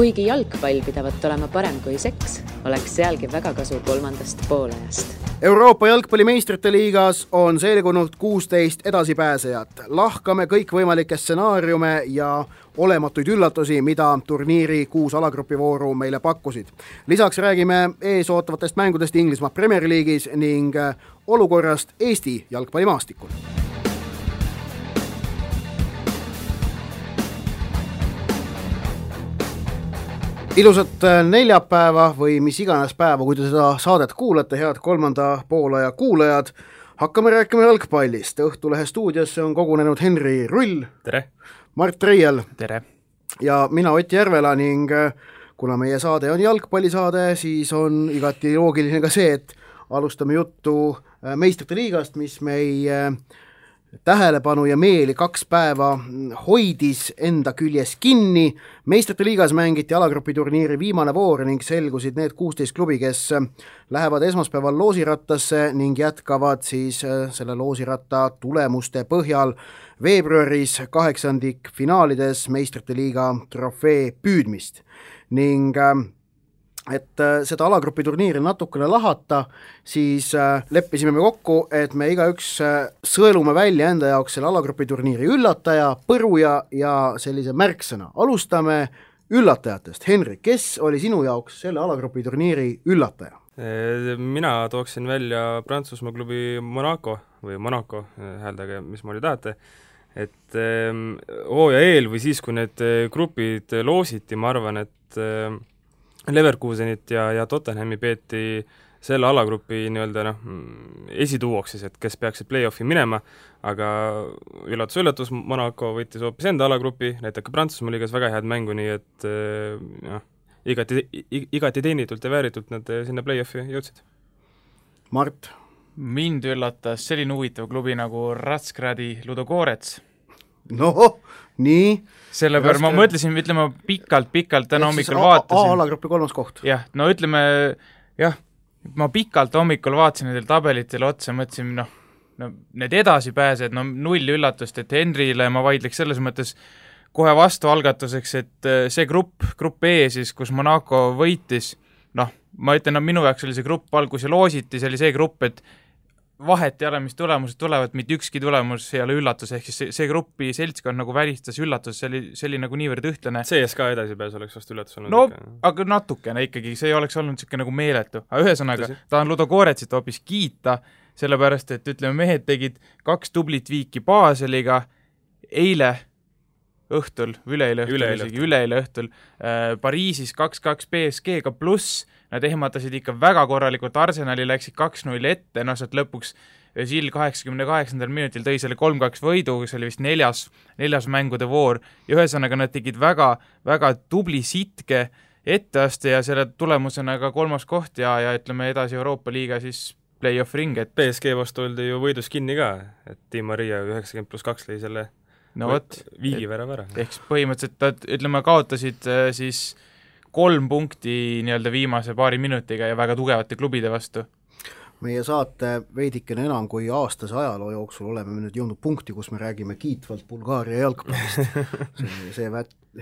Kuigi jalgpall pidavat olema parem kui seks, oleks sealgi väga kasu kolmandast poolajast. Euroopa jalgpallimeistrite liigas on selgunud 16 edasipääsejat. Lahkame kõikvõimalikke stsenaariume ja olematuid üllatusi, mida turniiri 6 alagruppivooru meile pakkusid. Lisaks räägime ees ootavatest mängudest Inglismaa Premier League'is ning olukorrast Eesti jalgpallimaastikul. Ilusat neljapäeva või mis iganes päeva, kui te seda saadet kuulate, head kolmanda poolaja kuulajad. Hakkame rääkima jalgpallist. Õhtulehe stuudiosse on kogunenud Henri Rull. Tere! Mart Reiel. Tere! Ja mina Ott Järvela ning kuna meie saade on jalgpallisaade, siis on igati loogiline ka see, et alustame juttu meistrite liigast, mis meie tähelepanu ja meeli 2 päeva hoidis enda küljes kinni. Meistrite liigas mängiti alagrupiturniiri viimane voor ning selgusid need 16 klubi, kes lähevad esmaspäeval loosirattasse ning jätkavad siis selle loosiratta tulemuste põhjal veebruaris 8. finaalides meistrite liiga trofee püüdmist. Ning et seda alagrupi turniiri natukene lahata, siis leppisime me kokku, et me igaüks sõelume välja enda jaoks selle alagrupi turniiri üllataja, põruja ja sellise märksõna. Alustame üllatajatest. Henri, kes oli sinu jaoks selle alagrupi turniiri üllataja? Mina tooksin välja Prantsusmaa klubi Monaco või Monaco, hääldage, mis moodi tahate. Et hooaja eel või siis, kui need grupid loositi, ma arvan, et Leverkusenit ja Tottenhami peeti selle alagrupi esituuoks siis, et kes peaksid play-offi minema, aga üllatus, Monaco võttis hoopis enda alagrupi, näitab ka Prantsusmaa liigas väga head mängu, nii et igati teenitult ja vääritult nad sinna play-offi jõudsid. Mart? Mind üllatas selline huvitav klubi nagu Razgradi Ludogorets. No, nii. Selle peale ma mõtlesin, ütleme, pikalt täna hommikul vaatasin. A-alagrupi 3. koht. Jah, no ütleme, ma pikalt hommikul vaatasin nendel tabelitele otsa, mõtlesin, need edasipääsed, 0 üllatust, et Henrile ma vaidleks selles mõttes kohe vastu algatuseks, et see grupp E siis, kus Monaco võitis, ma ütlen, minu jaoks oli see grupp algus ja loositi, see oli see grupp, et vahet ei ole, mis tulemused tulevad, mitte ükski tulemus ei ole üllatus, ehk siis see gruppi seltskond nagu välistas üllatus, see oli nagu niivõrd ühtlane. CSKA edasipääs oleks vast üllatus olnud. No, aga natukene ikkagi, see ei oleks olnud niisugune nagu meeletu. Aga ühesõnaga, tahan Ludogoretsit hoopis kiita, sellepärast, et ütleme, mehed tegid 2 tublit viiki Baseliga üleeile õhtul Pariisis 2-2 PSG-ga pluss, nad ehmatasid ikka väga korralikult, Arsenali läksid 2-0 ette, sealt lõpuks Žill 88. minutil tõi selle 3-2 võidu, see oli vist neljas mängude voor, ja ühesõnaga nad tegid väga, väga tubli sitke etteaste ja selle tulemusena ka 3. koht ja ütleme edasi Euroopa liiga siis play-off ring. Et PSG vastu oldi ju võidus kinni ka, et Di Maria 90+2 lõi selle viigivärava ära. Ehk põhimõtteliselt, ütleme, kaotasid siis 3 punkti viimase paari minutiga ja väga tugevate klubide vastu. Meie saate veidikene enam kui aastase ajaloo jooksul oleme nüüd jõudnud punkti, kus me räägime kiitvalt Bulgaaria jalgpallist. See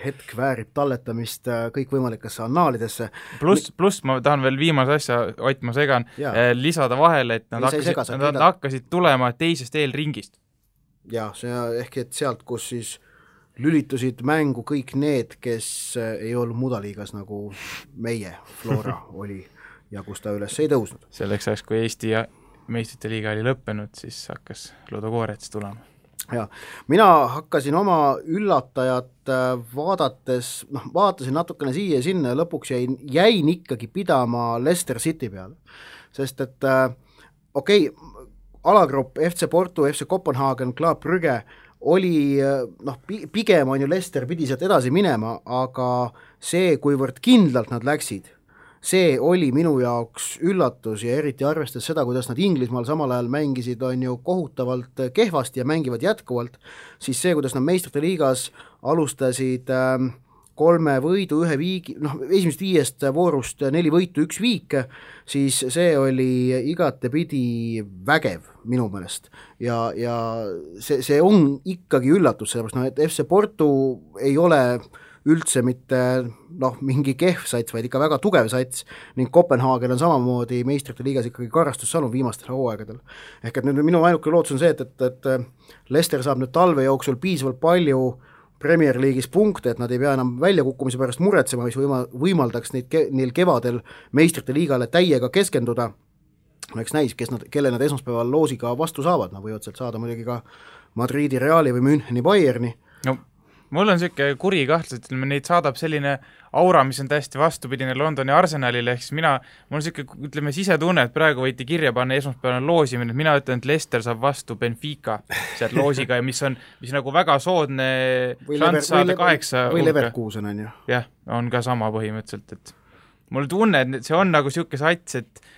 hetk väärib talletamist kõikvõimalikesse annaalidesse. Pluss ma tahan veel viimase asja, Ott, ma segan, lisada vahele, et nad hakkasid tulema teisest eelringist. Ja, see ehk et sealt, kus siis lülitusid mängu kõik need, kes ei olnud mudaliigas nagu meie Flora oli ja kus ta üles ei tõusnud. Selleks ajaks, kui Eesti ja meistrite liiga oli lõppenud, siis hakkas Ludogorets tulema. Ja, mina hakkasin oma üllatajat vaatasin natukene siia ja sinna ja lõpuks jäin ikkagi pidama Leicester City peale. Sest et alagrupp FC Porto, FC Kopenhagen, Club Brugge oli, pigem on ju Leicester pidi sealt edasi minema, aga see, kuivõrd kindlalt nad läksid, see oli minu jaoks üllatus ja eriti arvestades seda, kuidas nad Inglismaal samal ajal mängisid, on ju kohutavalt kehvasti ja mängivad jätkuvalt, siis see, kuidas nad meistrite liigas alustasid 3 võidu, 1 viigi, esimest 5 voorust 4 võitu, 1 viik, siis see oli igatepidi vägev minu meelest. Ja see on ikkagi üllatus, sellepärast, et FC Porto ei ole üldse mitte mingi kehv sats, vaid ikka väga tugev sats ning Kopenhaagen on samamoodi meistrite liigas ikkagi karastussalun viimastel hooaegadel. Ehk et nüüd minu ainuke lootus on see, et Leicester saab nüüd talve jooksul piisavalt palju Premier League'is punkte, et nad ei pea enam väljakukkumise pärast muretsema, mis võimaldaks neil kevadel meistrite liigale täiega keskenduda. Eks näis, kelle nad esmaspäeval loosiga vastu saavad, nad võivad sealt saada muidugi ka Madridi Reali või Müncheni Bayerni. No mul on selline kuri kahtlus, et neid saadab selline aura, mis on täiesti vastupidine Londoni Arsenalile, ehk siis mul on selline sisetunne, et praegu võiti kirja panna esmaspäevane loosimine, et mina ütlen, et Leicester saab vastu Benfica sealt loosiga ja mis nagu väga soodne šants saada 8 või Leverkusen on ju. Jah, on ka sama põhimõtteliselt, et mul tunne, et see on nagu selline sats, et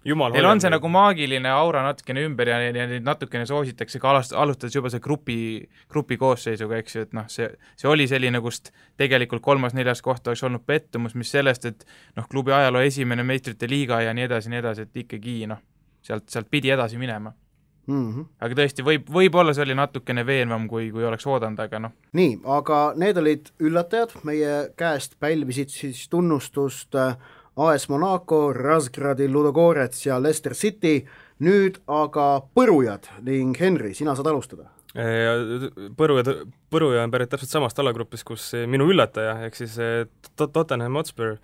neil on see nagu maagiline aura natukene ümber ja neid natukene soositakse ka alustades juba see grupi koosseisuga, eks ju, et see oli selline, kust tegelikult 3.-4. koht oleks olnud pettumus, mis sellest, et klubi ajaloo esimene meistrite liiga ja nii edasi, et ikkagi sealt pidi edasi minema. Aga tõesti, võib-olla see oli natukene veenvam, kui oleks oodanud, aga Nii, aga need olid üllatajad, meie käest pälvisid siis tunnustust AS Monaco, Razgradi, Ludogorets ja Leicester City, nüüd aga põrujad ning Henri, sina saad alustada. Põruja on pärit täpselt samast alagrupis, kus minu üllataja, ehk siis Tottenham Hotspur,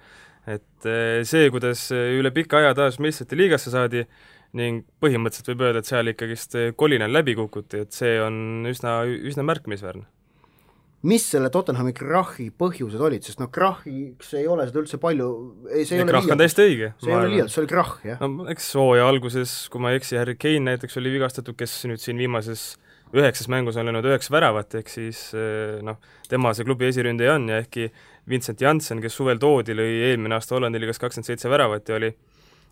et see, kuidas üle pika aja taas meistrite liigasse saadi ning põhimõtteliselt võib öelda, et seal ikkagist kolinal läbi kukuti, et see on üsna märkimisväärne. Mis selle Tottenhami krahhi põhjused olid, sest krahhiks ei ole seda üldse palju, see ei ole krahh on täiesti õige. See ei ole liialt, see oli krahh, jah. No, eks hooaja alguses, kui ma ei eksi, Harry Kane näiteks oli vigastatud, kes nüüd siin viimases 9 mängus on löönud 9 väravat, ehk siis tema see klubi esiründaja on ja ehkki Vincent Janssen, kes suvel toodi, lõi eelmine aasta Hollandi liigas 27 väravat ja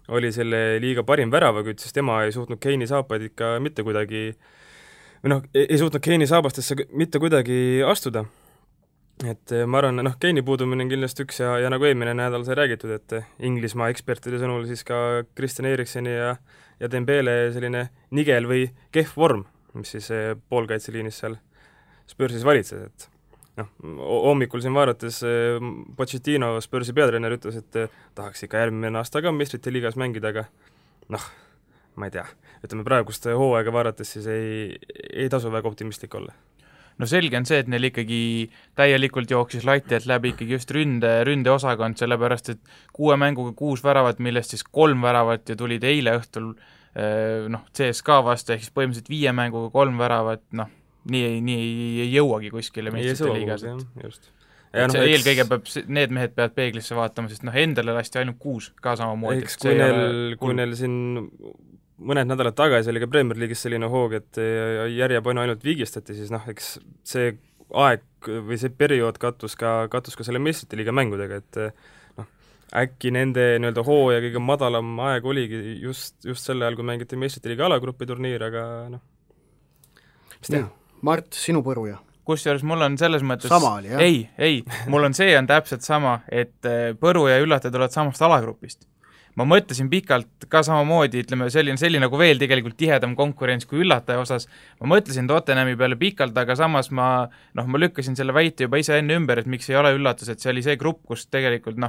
oli selle liiga parim väravakütt, siis tema ei suutnud Kane'i saapaid ikka mitte kuidagi ei suutnud Kane'i saabastesse mitte kuidagi astuda. Et ma arvan, Kane'i puudumine on kindlasti üks ja nagu eelmine nädal sai räägitud, et Inglismaa ekspertide sõnul siis ka Christian Erikseni ja Dembele selline nigel või kehv vorm, mis siis poolkaitseliinis seal Spursis valitses, et hommikul siin vaadates Pochettino, Spursi peatreener, ütles, et tahaks ikka järgmine aasta ka meistrite liigas mängida, aga ma ei tea, ütleme praegust hooaega vaadates siis ei tasu väga optimistlik olla. No selge on see, et neil ikkagi täielikult jooksis lati alt läbi ikkagi just ründeosakond, sellepärast et 6 mänguga 6 väravat, millest siis 3 väravat ja tulid eile õhtul CSKA vastu, ehk siis põhimõtteliselt 5 mänguga 3 väravat, nii ei jõuagi kuskile meistrite liigas. Eelkõige need mehed peavad peeglisse vaatama, sest endale lasti ainult 6 ka samamoodi. Eks kui neil siin mõned nädalad tagasi oli ka Premier League'is selline hoog, et järjepanu ainult viigistati, siis eks see aeg või see periood kattus ka selle meistrite liiga mängudega, et äkki nende nii-öelda hooaja kõige madalam aeg oligi just selle ajal, kui mängiti meistrite liiga alagrupi turniir, aga mis teha? Mart, sinu põruja? Kusjuures mul on selles mõttes sama oli, jah? Ei, mul on täpselt sama, et põru ja üllatajad tulevad samast alagrupist. Ma mõtlesin pikalt ka samamoodi, ütleme, selline nagu veel tegelikult tihedam konkurents kui üllataja osas. Ma mõtlesin Tottenhami peale pikalt, aga samas ma lükkasin selle väite juba ise enne ümber, et miks ei ole üllatus, et see oli see grupp, kus tegelikult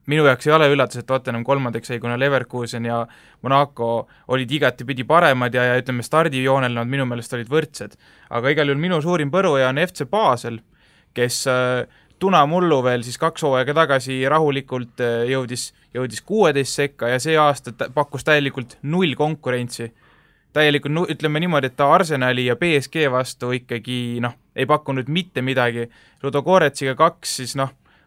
minu jaoks ei ole üllatus, et Tottenham 3. sai, kuna Leverkusen ja Monaco olid igatipidi paremad ja ütleme, stardijoonel nad minu meelest olid võrdsed. Aga igal juhul minu suurim põruja on FC Basel, kes tunamullu veel siis 2 hooaega tagasi rahulikult jõudis 16 sekka ja see aasta pakkus täielikult 0 konkurentsi. Täielikult, ütleme niimoodi, et ta Arsenali ja PSG vastu ikkagi ei pakkunud mitte midagi. Ludogoretsiga 2 siis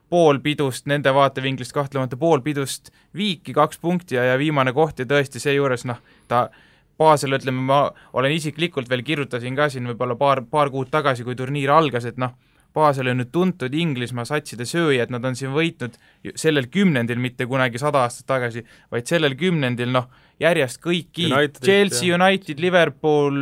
pool pidust, nende vaatevinklist kahtlemata pool pidust viiki 2 punkti ja viimane koht ja tõesti seejuures ta Basel, ütleme, ma olen isiklikult veel kirjutasin ka siin võib-olla paar kuud tagasi, kui turniir algas, et Basel on nüüd tuntud Inglismaa satside sööja, et nad on siin võitnud sellel 10. mitte kunagi 100 aastat tagasi, vaid sellel 10. järjest kõiki Chelsea, United, Liverpool,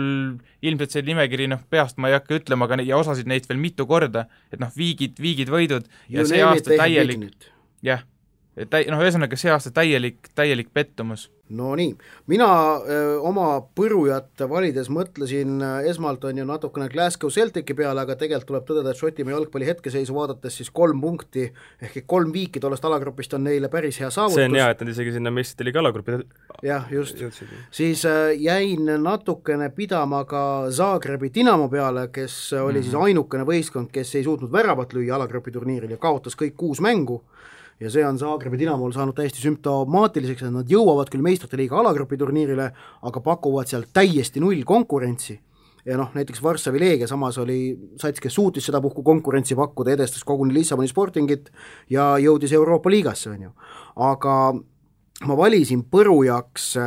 ilmselt see nimekiri peast ma ei hakka ütlema, aga ja osasid neid veel mitu korda, et viigid võidud ja see aasta täielik, jah, ühesõnaga see aasta täielik pettumus. No nii, mina oma põrujat valides mõtlesin esmalt on ju natukene Glasgow Celtici peale, aga tegelikult tuleb tõdeda, et Šotimaa jalgpalli hetkeseisu vaadates siis 3 punkti ehk 3 viiki tollest alagrupist on neile päris hea saavutus. See on hea, et nad isegi sinna meistrite liiga alagrupi jah, just. Siis jäin natukene pidama ka Zagrebi Dinamo peale, kes oli siis ainukene võistkond, kes ei suutnud väravat lüüa alagrupi turniiril ja kaotas kõik 6 mängu. Ja see on Zagrebi Dinamol saanud täiesti sümptomaatiliseks, et nad jõuavad küll meistrite liiga alagrupi turniirile, aga pakuvad seal täiesti null konkurentsi. Ja noh, näiteks Varssavi Leegia samas oli sats, kes suutis seda puhku konkurentsi pakkuda, edestas koguni Lissaboni Sportingit ja jõudis Euroopa liigasse, on ju. Aga ma valisin põrujaks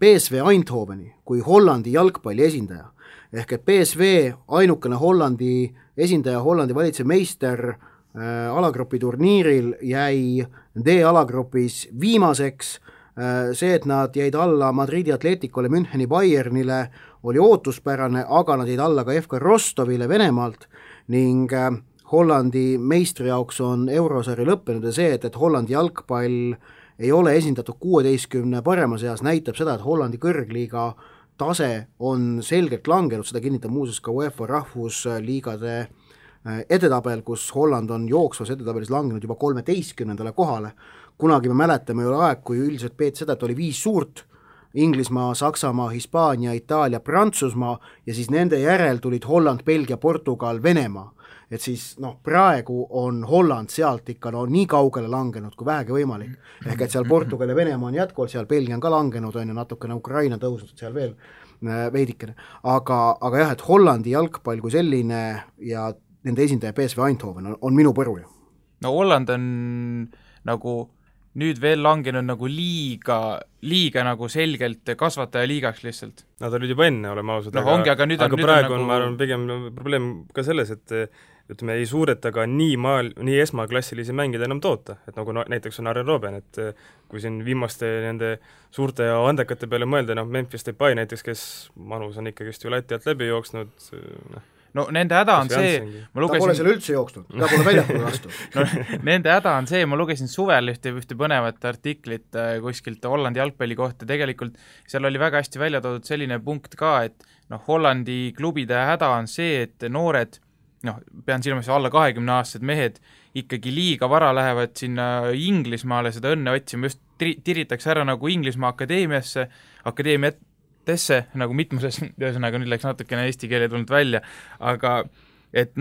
PSV Eindhoveni kui Hollandi jalgpalli esindaja. Ehk et PSV ainukene Hollandi esindaja, Hollandi valitsev meister alagrupi turniiril jäi D-alagrupis viimaseks. See, et nad jäid alla Madridi Atleticole, Müncheni Bayernile oli ootuspärane, aga nad jäid alla ka FK Rostovile Venemaalt ning Hollandi meistri jaoks on eurosari lõppenud ja see, et Hollandi jalgpall ei ole esindatud 16 parema seas, näitab seda, et Hollandi kõrgliiga tase on selgelt langenud, seda kinnitab muuseas ka UEFA rahvusliigade edetabel, kus Holland on jooksvas edetabelis langenud juba 13. kohale. Kunagi me mäletame ju aeg, kui üldiselt peeti seda, et oli 5 suurt, Inglismaa, Saksamaa, Hispaania, Itaalia, Prantsusmaa ja siis nende järel tulid Holland, Belgia, Portugal, Venemaa. Et siis praegu on Holland sealt ikka nii kaugele langenud kui vähegi võimalik. Ehk et seal Portugal ja Venemaa on jätkuvalt, seal Belgia on ka langenud, on ju natukene Ukraina tõusnud seal veel veidikene. Aga jah, et Hollandi jalgpall kui selline ja nende esindaja PSV Eindhoven on minu põruja. No Holland on nagu nüüd veel langenud nagu liiga nagu selgelt kasvataja liigaks lihtsalt. Nad olid juba enne, oleme ausad, aga praegu on, ma arvan, pigem probleem ka selles, et ütleme, ei suureta ka nii esmaklassilisi mängida enam toota, et nagu näiteks on Arjen Robben, et kui siin viimaste nende suurte ja andekate peale mõelda, Memphis Depay näiteks, kes manus on ikkagist ju Läti alt läbi jooksnud, no nende häda on see, ta pole seal üldse jooksnud, ta pole väljapoole vastu. Nende häda on see, ma lugesin suvel ühte põnevat artiklit kuskilt Hollandi jalgpalli kohta, tegelikult seal oli väga hästi välja toodud selline punkt ka, et Hollandi klubide häda on see, et noored, pean silmas alla 20-aastased mehed ikkagi liiga vara lähevad sinna Inglismaale seda õnne otsima, just tiritakse ära nagu Inglismaa akadeemiatesse, nagu mitmuses, ühesõnaga nüüd läks natukene eesti keele tulnud välja, aga et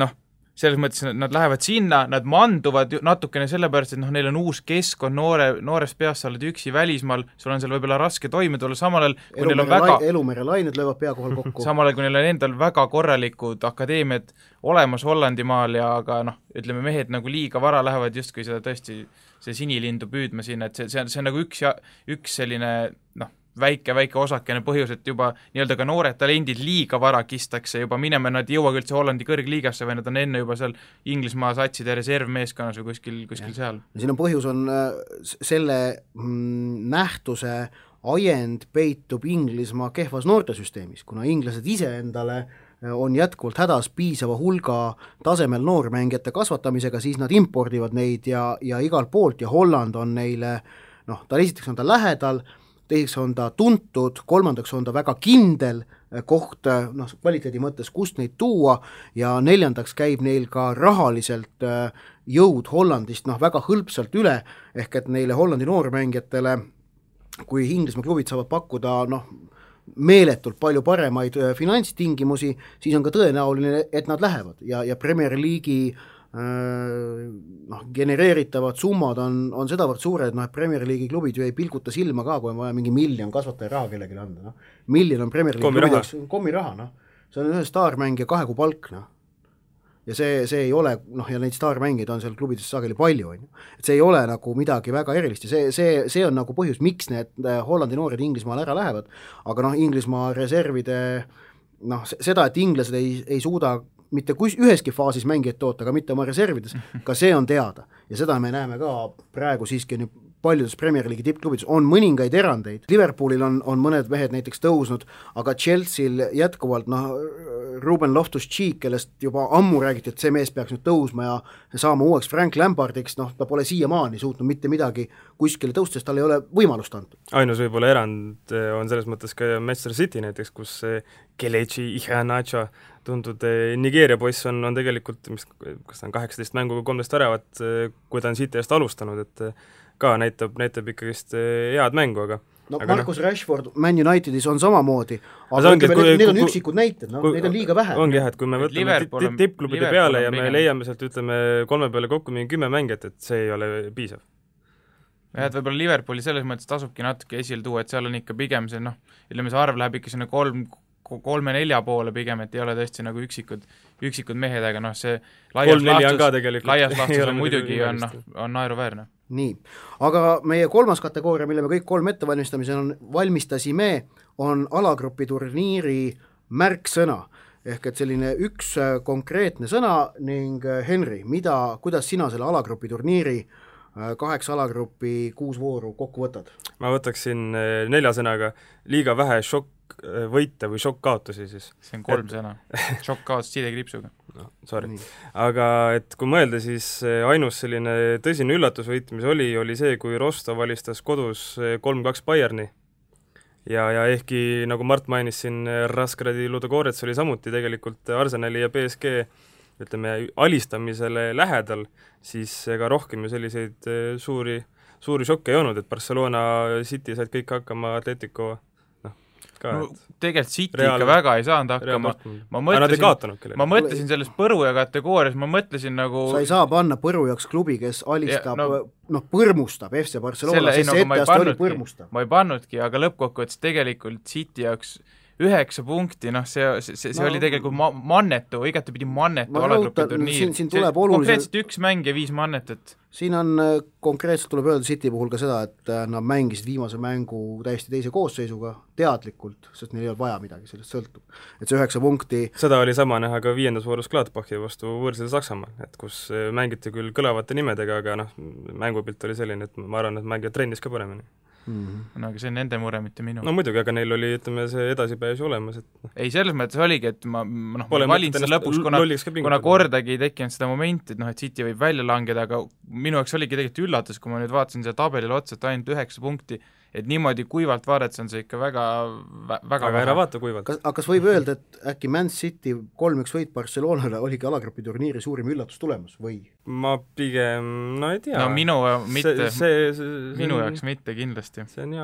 selles mõttes nad lähevad sinna, nad manduvad natukene sellepärast, et neil on uus keskkond, noorest peast sa oled üksi välismaal, sul on seal võib-olla raske toime tulla, samal ajal kui neil on Elumere lained löövad pea kohal kokku. Samal ajal kui neil on endal väga korralikud akadeemiad olemas Hollandimaal ja aga ütleme, mehed nagu liiga vara lähevad justkui seda tõesti see sinilindu püüdma sinna, et see on nagu üks selline väike osakene põhjus, et juba nii-öelda ka noored talendid liiga vara kistakse juba minema, nad ei jõuagi üldse Hollandi kõrgliigasse või nad on enne juba seal Inglismaa satside reservmeeskonnas või kuskil seal. Siin on põhjus on selle nähtuse ajend peitub Inglismaa kehvas noortesüsteemis, kuna inglased ise endale on jätkuvalt hädas piisava hulga tasemel noormängijate kasvatamisega, siis nad impordivad neid ja igalt poolt ja Holland on neile, esiteks on ta lähedal, teiseks on ta tuntud, kolmandaks on ta väga kindel koht, kvaliteedi mõttes, kust neid tuua ja neljandaks käib neil ka rahaliselt jõud Hollandist väga hõlpsalt üle, ehk et neile Hollandi noormängijatele, kui Inglismaa klubid saavad pakkuda meeletult palju paremaid finantstingimusi, siis on ka tõenäoline, et nad lähevad ja Premier League'i genereeritavad summad on sedavõrd suured, et Premier League'i klubid ju ei pilguta silma ka, kui on vaja mingi miljon kasvataja raha kellelegi anda. Miljon on Premier League'i kommiraha, see on ühe staarmängija 2 kuu palk. Ja see ei ole, ja neid staarmängijaid on seal klubides sageli palju, et see ei ole nagu midagi väga erilist ja see on nagu põhjus, miks need Hollandi noored Inglismaal ära lähevad, aga Inglismaa reservide, seda, et inglased ei suuda mitte üheski faasis mängijad toota, aga mitte oma reservides, ka see on teada. Ja seda me näeme ka praegu siiski paljudes Premier League'i tippklubides, on mõningaid erandeid, Liverpoolil on mõned mehed näiteks tõusnud, aga Chelsea'l jätkuvalt Ruben Loftus-Cheek, kellest juba ammu räägiti, et see mees peaks nüüd tõusma ja saama uueks Frank Lampardiks, ta pole siiamaani suutnud mitte midagi kuskile tõusta, sest tal ei ole võimalust antud. Ainus võib-olla erand on selles mõttes ka Manchester City näiteks, kus Kelechi Iheanacho tuntud Nigeeria poiss on tegelikult, kas ta on 18 mänguga 13 väravat, kui ta on City eest alustanud, et ka näitab ikkagist head mängu, aga Marcus Rashford Man Unitedis on samamoodi, aga need on üksikud näited, neid on liiga vähe. Ongi jah, et kui me võtame tippklubide peale ja me leiame sealt, ütleme, 3 peale kokku mingi 10 mängijat, et see ei ole piisav. jah, et võib-olla Liverpooli selles mõttes tasubki natuke esile tuua, et seal on ikka pigem see, ütleme, see arv läheb ikka sinna 3-4 poole pigem, et ei ole tõesti nagu üksikud mehed, aga see laias laastus on muidugi on naeruväärne. Nii, aga meie kolmas kategooria, mille me kõik 3 valmistasime, on alagrupi turniiri märksõna. Ehk et selline üks konkreetne sõna ning Henri, kuidas sina selle alagrupi turniiri 8 alagrupi 6 vooru kokku võtad? Ma võtaksin 4 sõnaga liiga vähe šokk-võite või šokk-kaotusi siis. See on 3 sõna. Šokk-kaotus sidekriipsuga. No, sorry. Aga et kui mõelda, siis ainus selline tõsine üllatusvõit, mis oli see, kui Rostov alistas kodus 3-2 Bayerni. Ja ehkki, nagu Mart mainis siin, Raskradi Ludogorets oli samuti tegelikult Arsenali ja PSG ütleme, alistamisele lähedal, siis ega rohkem ju selliseid suuri šokke ei olnud, et Barcelona City said kõik hakkama, Atletico tegelikult City ikka väga ei saanud hakkama. Ma mõtlesin selles Põruja kategoorias, ma mõtlesin nagu sa ei saa panna Põrujaks klubi, kes alistab, põrmustab FC Barcelona, sest see etteast oli põrmustab. Ma ei pannudki, aga lõppkokkuvõttes tegelikult City jaoks 9 punkti, see oli tegelikult mannetu, igatepidi mannetu alagrupi turniir. Konkreetselt 1 mäng ja 5 mannetet. Siin on konkreetselt tuleb öelda City puhul ka seda, et nad mängisid viimase mängu täiesti teise koosseisuga teadlikult, sest neil ei olnud vaja midagi, sellest sõltub. Et see 9 punkti... Seda oli sama näha ka 5. voorus Gladbachi vastu võõrsel Saksamaal, et kus mängiti küll kõlavate nimedega, aga mängupilt oli selline, et ma arvan, et mängijad trennis ka paremini. No aga see on nende mure, mitte minu. No muidugi, aga neil oli, ütleme, see edasipääs olemas. Ei, selles mõttes oligi, et ma valin seda lõpuks, kuna kordagi ei tekkinud seda momenti, et City võib välja langeda, aga minu jaoks oligi tegelikult üllatus, kui ma nüüd vaatasin seda tabelile otsa, et ainult 9 punkti, et niimoodi kuivalt vaadates on see ikka väga ära vaata kuivalt. Kas võib öelda, et äkki Man City 3-1 võit Barcelonale oligi alagrupi turniiri suurim üllatus tulemus või? Ma pigem, ei tea. No minu jaoks mitte kindlasti. See on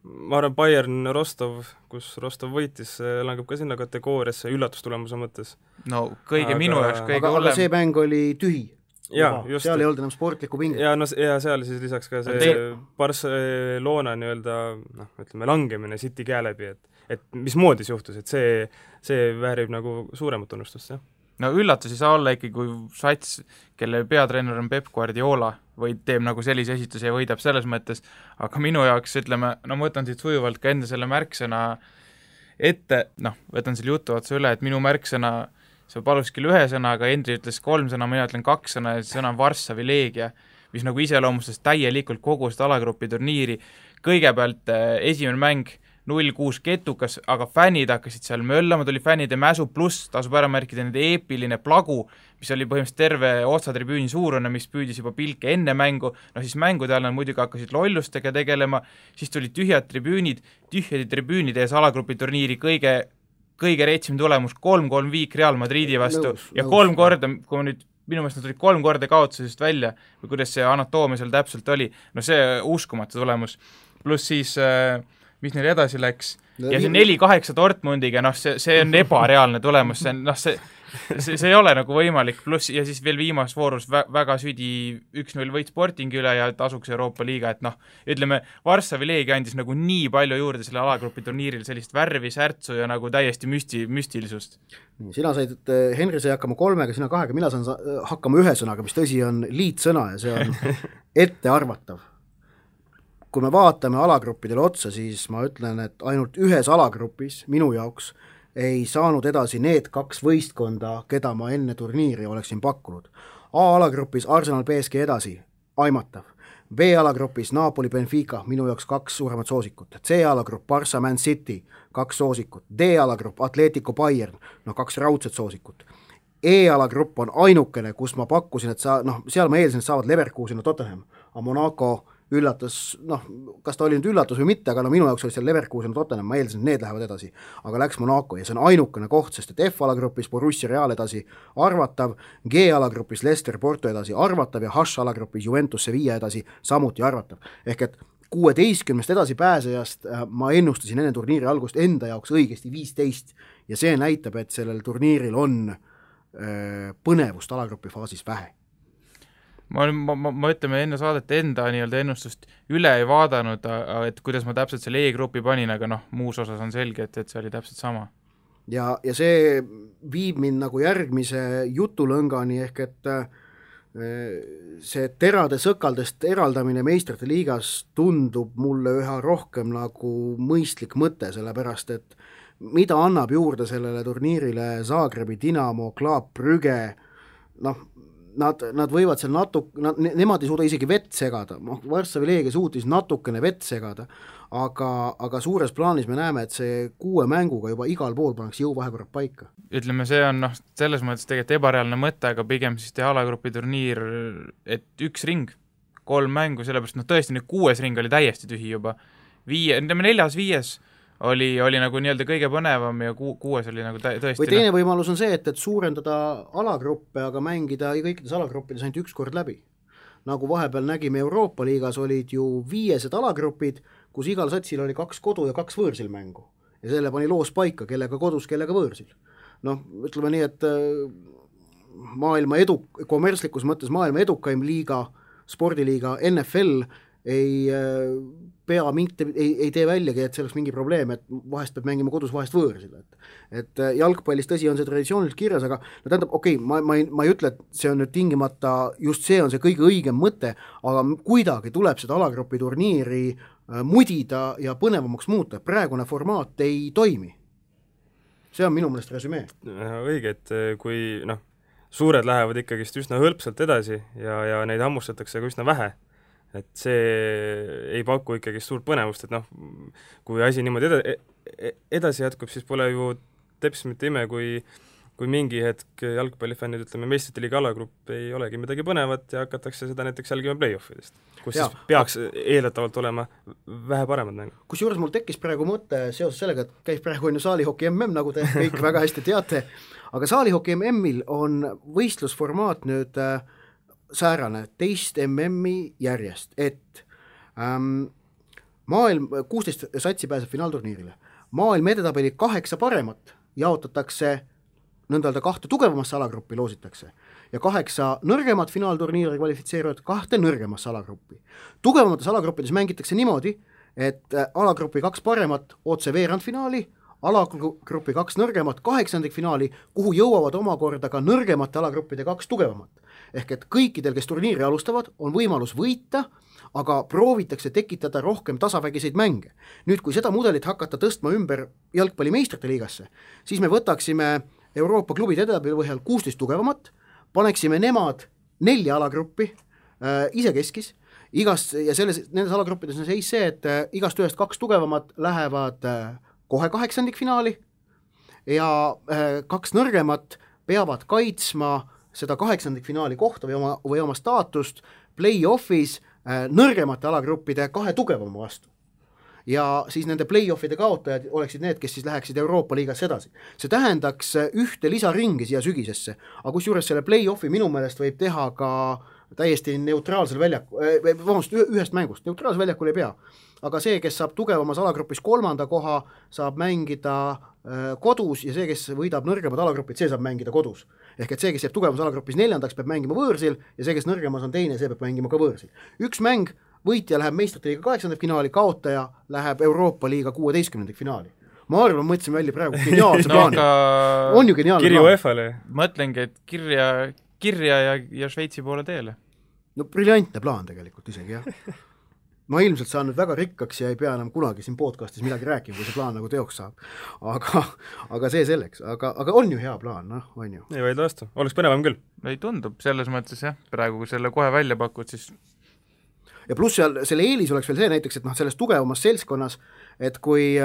ma arvan Bayern Rostov, kus Rostov võitis, langeb ka sinna kategooriasse üllatustulemuse mõttes. No minu jaoks kõige hullem. Aga see mäng oli tühi. Seal ei olnud enam sportlikku pinget. Ja seal siis lisaks ka see Barcelona ütleme langemine City käe läbi, et mismoodi see juhtus, et see väärib nagu suuremat tunnustust, jah. No üllatus ei saa olla ikkagi, kui sats, kelle peatreener on Pep Guardiola, või teeb nagu sellise esituse ja võidab selles mõttes, aga minu jaoks, ütleme, ma võtan siit sujuvalt ka enda selle märksõna ette, võtan selle jutu otsa üle, et minu märksõna sa palus küll 1 sõna, aga Hendri ütles 3 sõna, mina ütlen 2 sõna ja see sõna on Varssavi Leegia, mis nagu iseloomustas täielikult kogu seda alagrupi turniiri. Kõigepealt esimene mäng 0-6 ketukas, aga fännid hakkasid seal möllama, tuli fännide mäsu pluss, tasub ära märkida nende eepiline plagu, mis oli põhimõtteliselt terve otsatribüüni suurune, mis püüdis juba pilke enne mängu, siis mängude all nad muidugi hakkasid lollustega tegelema, siis tulid tühjade tribüünide ees alagrupi turniiri kõige reetsim tulemus 3-3 viik Real Madridi vastu ja 3 korda, kui nüüd minu meelest nad tulid 3 korda kaotusest välja või kuidas see anatoomia seal täpselt oli, see uskumatu tulemus, pluss siis mis neil edasi läks ja see 4-8 Dortmundiga, see on ebareaalne tulemus, see ei ole nagu võimalik, pluss ja siis veel viimas voorus väga südi 1-0 võit Sportingi üle ja tasuks Euroopa Liiga, et ütleme, Varssavi Leegia andis nagu nii palju juurde selle alagrupi turniiril, sellist värvi, särtsu ja nagu täiesti müstilisust. Sina said, Henri sai hakkama 3, sina 2, mina saan hakkama 1 sõnaga, mis tõsi on liitsõna ja see on ettearvatav. Kui me vaatame alagruppidele otsa, siis ma ütlen, et ainult 1 alagrupis minu jaoks ei saanud edasi need 2 võistkonda, keda ma enne turniiri oleksin pakkunud. A-alagrupis Arsenal PSG edasi, aimatav. B-alagrupis Napoli, Benfica, minu jaoks 2 suuremat soosikut. C-alagrupp Barca, Man City, 2 soosikut. D-alagrupp Atletico Bayern, 2 raudset soosikut. E-alagrupp on ainukene, kus ma pakkusin, et seal ma eelsin, et saavad Leverkusen ja Tottenham, aga Monaco üllatas, kas ta oli nüüd üllatus või mitte, aga minu jaoks oli seal Leverkusen ja Tottenham, ma eelsin, et need lähevad edasi, aga läks Monaco ja see on ainukene koht, sest et F-alagrupis Borussia Real edasi arvatav, G-alagrupis Leicester Porto edasi arvatav ja H-alagrupis Juventus Sevilla edasi samuti arvatav. Ehk et 16 edasi pääsejast ma ennustasin enne turniiri algust enda jaoks õigesti 15 ja see näitab, et sellel turniiril on põnevust alagrupi faasis vähe. Ma ütleme enne saadet enda nii-öelda ennustust üle ei vaadanud, et kuidas ma täpselt selle E-grupi panin, aga muus osas on selge, et see oli täpselt sama. Ja see viib mind nagu järgmise jutulõngani, ehk et see terade sõkaldest eraldamine meistrite liigas tundub mulle üha rohkem nagu mõistlik mõte, sellepärast et mida annab juurde sellele turniirile Zagrebi Dinamo, Club Brügge, nad võivad seal nemad ei suuda isegi vett segada, Varssavi Leegia suutis natukene vett segada, aga suures plaanis me näeme, et see 6 mänguga juba igal pool pannakse jõuvahekorrad paika. Ütleme, see on selles mõttes tegelikult ebareaalne mõte, aga pigem siis teha alagrupi turniir, et 1 ring, 3 mängu, sellepärast tõesti nüüd 6 ring oli täiesti tühi juba. 4-5 oli nagu nii-öelda kõige põnevam ja 6 oli nagu tõesti. Või teine võimalus on see, et suurendada alagruppe, aga mängida kõikides alagruppides ainult 1 kord läbi. Nagu vahepeal nägime Euroopa liigas olid ju 5 alagrupid, kus igal satsil oli 2 kodu ja 2 võõrsil mängu. Ja selle pani loos paika, kellega kodus, kellega võõrsil. Ütleme nii, et maailma kommertslikus mõttes maailma edukaim liiga, spordiliiga NFL ei tee väljagi, et see oleks mingi probleem, et vahest peab mängima kodus, vahest võõrsil. Et jalgpallis tõsi on see traditsiooniliselt kirjas, aga tähendab, ma ei ütle, et see on nüüd tingimata, just see on see kõige õigem mõte, aga kuidagi tuleb seda alagrupi turniiri mudida ja põnevamaks muuta, praegune formaat ei toimi. See on minu meelest resümee. Õige, et kui suured lähevad ikkagist üsna hõlpsalt edasi ja neid hammustatakse ka üsna vähe, et see ei paku ikkagi suurt põnevust, et kui asi niimoodi edasi jätkub, siis pole ju teps mitte ime, kui mingi hetk jalgpallifännid, ütleme, meistrite liiga alagrupp ei olegi midagi põnevat ja hakatakse seda näiteks jälgima play-offidest, kus siis peaks eeldatavalt olema vähe paremad mängu. Kusjuures mul tekkis praegu mõte seoses sellega, et käib praegu saalihoki MM, nagu te kõik väga hästi teate, aga saalihoki MM-il on võistlusformaat nüüd säärane teist MM-i järjest, et maailm 16 satsi pääseb finaalturniirile. Maailm edetabeli 8 paremat jaotatakse nõndalda 2 tugevamasse alagruppi loositakse ja 8 nõrgemat finaalturniiri kvalifitseeruvad 2 nõrgemasse alagruppi. Tugevamates alagruppides mängitakse niimoodi, et alagrupi 2 paremat otse veerandfinaali, alagrupi 2 nõrgemat 8. finaali, kuhu jõuavad omakorda ka nõrgemate alagruppide 2 tugevamat. Ehk et kõikidel, kes turniiri alustavad, on võimalus võita, aga proovitakse tekitada rohkem tasavägiseid mänge. Nüüd, kui seda mudelit hakata tõstma ümber jalgpalli meistrite liigasse, siis me võtaksime Euroopa klubid edetabeli põhjal 16 tugevamat, paneksime nemad 4 alagruppi isekeskis, ja nendes alagruppides on seis see, et igast ühest 2 tugevamat lähevad kohe 8. finaali ja 2 nõrgemat peavad kaitsma seda 8. finaali kohta või oma staatust play-offis nõrgemate alagruppide 2 tugevama vastu. Ja siis nende play-offide kaotajad oleksid need, kes siis läheksid Euroopa liigas edasi. See tähendaks 1 lisaringi siia sügisesse, aga kusjuures selle play-offi minu meelest võib teha ka täiesti neutraalsel ühest mängust, neutraalsel väljakul ei pea. Aga see, kes saab tugevamas alagrupis 3. koha, saab mängida kodus ja see, kes võidab nõrgemad alagrupid, see saab mängida kodus. Ehk et see, kes jääb tugevamas alagrupis 4. peab mängima võõrsil ja see, kes nõrgemas on 2, see peab mängima ka võõrsil. 1 mäng, võitja läheb meistrite liiga 8. finaali, kaotaja läheb Euroopa liiga 16. finaali. Ma arvan, mõtlesin välja praegu geniaalse plaani. On ju geniaalne Kirju EFA-le. Mõtlengi, et kirja ja Šveitsi poole teele. Briljantne plaan tegelikult isegi, jah. Ma ilmselt saan nüüd väga rikkaks ja ei pea enam kunagi siin podcastis midagi rääkima, kui see plaan nagu teoks saab. Aga see selleks. Aga on ju hea plaan, on ju. Ei vaidle vastu. Oleks põnevam küll. Ei tundub selles mõttes, jah. Praegu, kui selle kohe välja pakud, siis ja pluss seal selle eelis oleks veel see näiteks, et selles tugevamas seltskonnas, et kui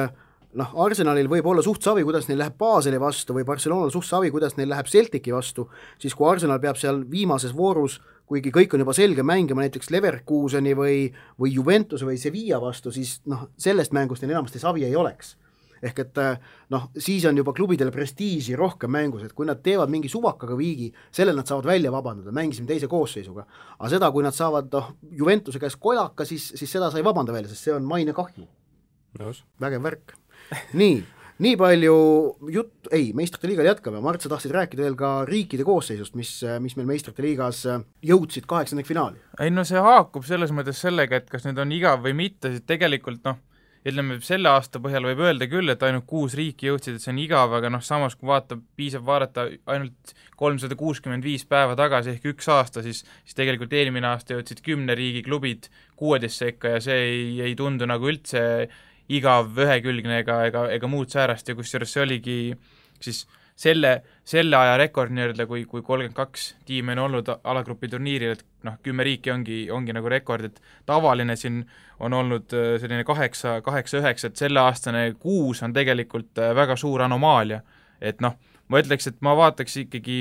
Arsenalil võib olla suht savi, kuidas neil läheb Baseli vastu või Barcelonal suht savi, kuidas neil läheb Celtici vastu, siis kui Arsenal peab seal viimases voorus, kuigi kõik on juba selge mängima näiteks Leverkuseni või Juventus või Sevilla vastu, siis sellest mängust neil enamasti savi ei oleks. Ehk et siis on juba klubidel prestiiži rohkem mängus, et kui nad teevad mingi suvakaga viigi, sellel nad saavad välja vabandada, mängisime teise koosseisuga. Aga seda, kui nad saavad Juventuse käes kolaka, siis seda sa ei vabanda välja, sest see on maine kahju. Vägev värk. Nii palju meistrite liigal jätkame. Mart, sa tahtsid rääkida veel ka riikide koosseisust, mis meil meistrite liigas jõudsid 8. finaali. Ei see haakub selles mõttes sellega, et kas need on igav või mitte, siis tegelikult ütleme, selle aasta põhjal võib öelda küll, et ainult 6 riiki jõudsid, et see on igav, aga samas kui piisab vaadata ainult 365 päeva tagasi ehk 1 aasta, siis tegelikult eelmine aasta jõudsid 10 riigi klubid 16 sekka ja see ei tundu nagu üldse igav, ühekülgne ega muud säärast ja kusjuures see oligi siis selle aja rekord nii-öelda, kui 32 tiimi on olnud alagrupi turniiril, et 10 riiki ongi nagu rekord, et tavaline siin on olnud selline 8-9, et selle aastane 6 on tegelikult väga suur anomaalia. Et ma ütleks, et ma vaataks ikkagi,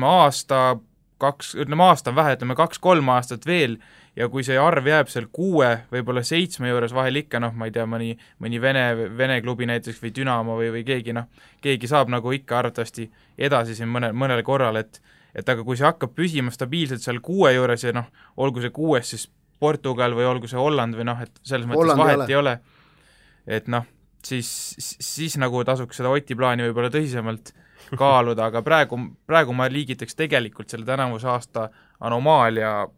aasta on vähe, 2-3 aastat veel, ja kui see arv jääb seal 6, võib-olla 7 juures vahel ikka, ma ei tea, mõni Vene klubi näiteks või Dünamo või keegi saab nagu ikka arvatavasti edasi siin mõnel korral, et aga kui see hakkab püsima stabiilselt seal 6 juures ja olgu see 6 siis Portugal või olgu see Holland või et selles mõttes vahet ei ole, et siis nagu tasuks seda Oti plaani võib-olla tõsisemalt kaaluda, aga praegu ma liigitaks tegelikult selle tänavuse aasta anomaalia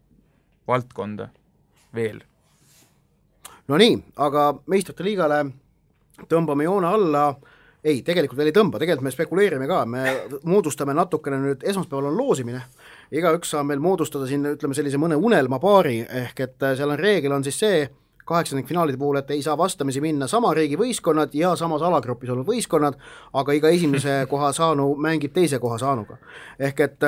valdkonda veel. No nii, aga meistrite liigale tõmbame joone alla, tegelikult veel ei tõmba, tegelikult me spekuleerime ka, me moodustame natukene nüüd, esmaspäeval on loosimine, igaüks saab meil moodustada siin, ütleme sellise mõne unelmapaari, ehk et seal on reegel on siis see, 8. finaalide puhul, et ei saa vastamisi minna sama riigi võistkonnad ja samas alagrupis olnud võistkonnad, aga iga esimese koha saanu mängib teise koha saanuga. Ehk et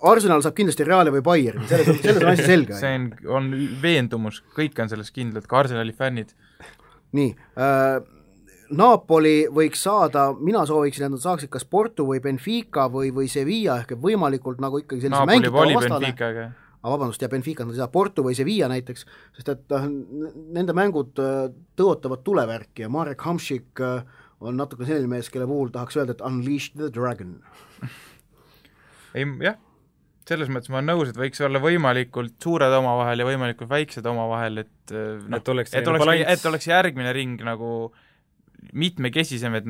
Arsenal saab kindlasti Reali või Bayerni, selles on asi selge. See on veendumus, kõik on selles kindlad, ka Arsenali fännid. Nii, Napoli võiks saada, mina sooviksin, et nad saaksid kas Porto või Benfica või Sevilla, ehk võimalikult nagu ikkagi sellise mängitava vastane. Vabandust, ja Benfica nad ei saa Porto või Sevilla näiteks, sest et nende mängud tõotavad tulevärki ja Marek Hamšik on natuke selline mees, kelle puhul tahaks öelda, et unleash the dragon. Jah, selles mõttes ma olen nõus, et võiks olla võimalikult suured omavahel ja võimalikult väiksed omavahel, et oleks järgmine ring nagu mitmekesisem, et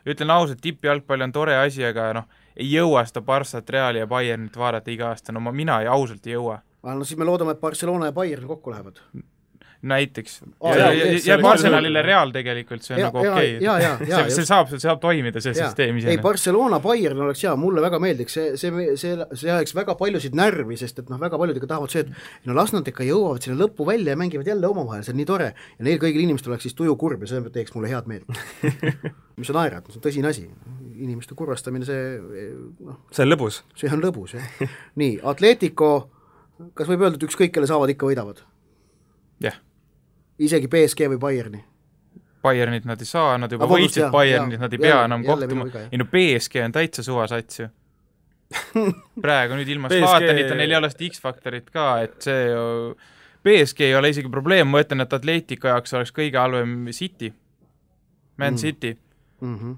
ütlen ausalt, tippjalgpall on tore asi, aga ei jõua seda Barssat, Reali ja Bayernit vaadata iga aasta, mina ausalt ei jõua. Siis me loodame, et Barcelona ja Bayern kokku lähevad. Näiteks. Ja Arsenalile Real tegelikult, see on nagu okei. See saab toimida, see süsteem isene. Barcelona, Bayern oleks mulle väga meeldiks, see ajaks väga paljusid närvi, sest et väga paljud ikka tahavad see, et las nad ikka jõuavad sinna lõppu välja ja mängivad jälle omavahel, see on nii tore ja neil kõigil inimestel oleks siis tuju kurb ja see teeks mulle head meelt. Mis on naerad, see on tõsine asi, inimeste kurvastamine, see on lõbus. See on lõbus, jah. Nii, Atletico, kas võib öelda, et ükskõik, kelle saavad, ikka võidavad? Jah. Isegi PSG või Bayerni? Bayernit nad ei saa, nad juba võitsid Bayernit, nad ei pea enam kohtuma. PSG on täitsa suvasats ju. Praegu nüüd ilma Slaatanita neil ei ole seda X-faktorit ka, et see PSG ei ole isegi probleem, ma ütlen, et Atletico jaoks oleks kõige halvem City, Man City,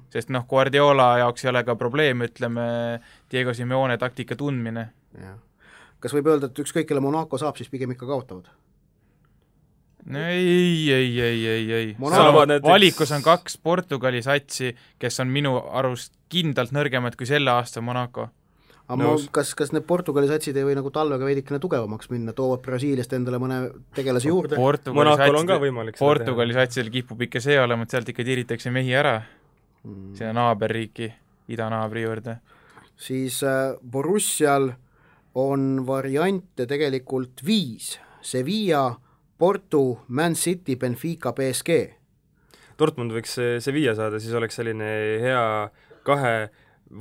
sest Guardiola jaoks ei ole ka probleem, ütleme, Diego Simeone taktika tundmine. Kas võib öelda, et ükskõik, kelle Monaco saab, siis pigem ikka kaotavad? Ei. Valikus on 2 Portugali satsi, kes on minu arust kindlalt nõrgemad kui selle aasta Monaco. Kas need Portugali satsid ei või nagu talvega veidikene tugevamaks minna, toovad Brasiiliast endale mõne tegelase juurde? Portugali satsil kipub ikka see olema, et sealt ikka tiritakse mehi ära sinna naaberriiki, idanaabri juurde. Siis Borussial on variante tegelikult 5, Sevilla, Porto, Man City, Benfica, PSG. Dortmund võiks Sevilla saada, siis oleks selline hea 2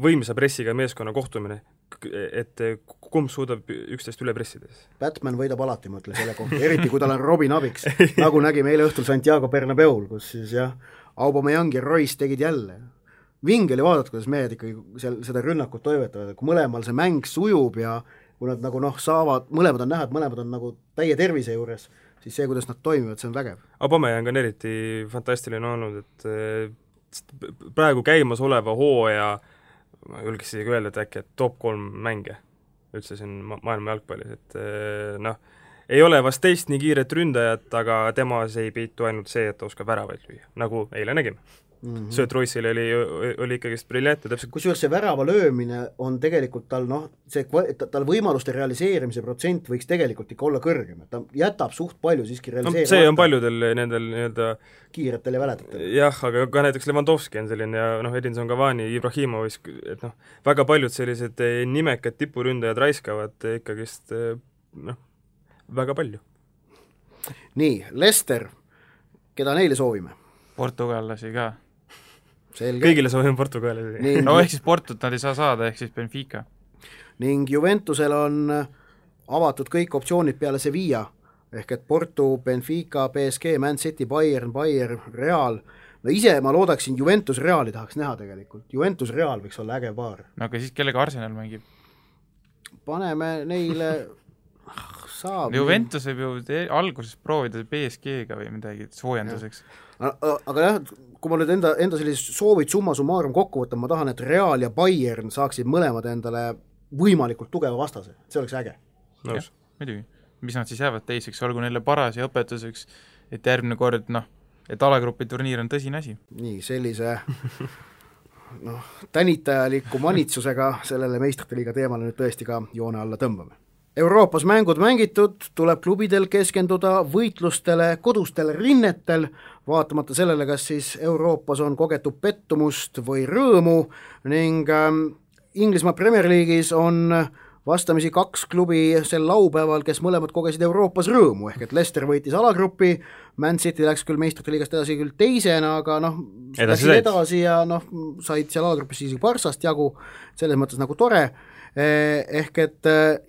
võimsa pressiga meeskonna kohtumine. et kumb suudab üksteist üle pressida. Batman võidab alati, ma ütlen selle kohta, eriti kui tal on Robin abiks, nagu nägime eile õhtul Santiago Bernabeul, kus siis jah, Aubameyang ja Royce tegid jälle. Vinge oli vaadata, kuidas mehed ikkagi seda rünnakut toimetavad, kui mõlemal see mäng sujub ja kui nad nagu saavad, mõlemad on näha, et mõlemad on nagu täie tervise juures, siis see, kuidas nad toimivad, see on vägev. Aubameyang on eriti fantastiline olnud, et praegu käimas oleva hooaja, ma julgeks isegi öelda, et äkki top 3 mänge üldse siin maailma jalgpallis, et ei ole vast teist nii kiiret ründajat, aga temas ei peitu ainult see, et ta oskab väravaid lüüa, nagu eile nägime. Sööt Royce'il oli ikkagi briljantne täpselt. Kusjuures see värava löömine on tegelikult tal, tal võimaluste realiseerimise protsent võiks tegelikult ikka olla kõrgem, et ta jätab suht palju siiski realiseerimata. See on paljudel nendel nii-öelda kiiretel ja väledatel. Jah, aga ka näiteks Lewandowski on selline ja Edinson Cavani, Ibrahimovic, et väga paljud sellised nimekad tipuründajad raiskavad ikkagist väga palju. Nii, Leicester, keda neile soovime? Portugallasi ka. Selge. Kõigile soovime Portugali. No ehk siis Portut nad ei saa saada, ehk siis Benfica. Ning Juventusel on avatud kõik optsioonid peale Sevilla, ehk et Porto, Benfica, PSG, Man City, Bayern, Real. No ise ma loodaksin Juventus Reali tahaks näha tegelikult. Juventus Real võiks olla äge paar. No aga siis kellega Arsenal mängib? Paneme neile saab. Juventus võib ju alguses proovida PSG-ga või midagi soojenduseks. Aga jah, kui ma nüüd enda sellised soovid summa summarum kokku võtan, ma tahan, et Real ja Bayern saaksid mõlemad endale võimalikult tugeva vastase, see oleks äge. Nõus. Muidugi, mis nad siis jäävad teiseks, olgu neile paras ja õpetuseks, et järgmine kord, et alagrupi turniir on tõsine asi. Nii, sellise tänitajaliku manitsusega sellele meistrite liiga teemale nüüd tõesti ka joone alla tõmbame. Euroopas mängud mängitud, tuleb klubidel keskenduda võitlustele, kodustele rinnetel, vaatamata sellele, kas siis Euroopas on kogetud pettumust või rõõmu ning Inglismaa Premier League'is on vastamisi 2 klubi sel laupäeval, kes mõlemad kogesid Euroopas rõõmu, ehk et Leicester võitis alagrupi, Man City läks küll meistrite liigast edasi küll teisena, aga edasi ja said seal alagrupis isegi Barsast jagu, selles mõttes nagu tore, ehk et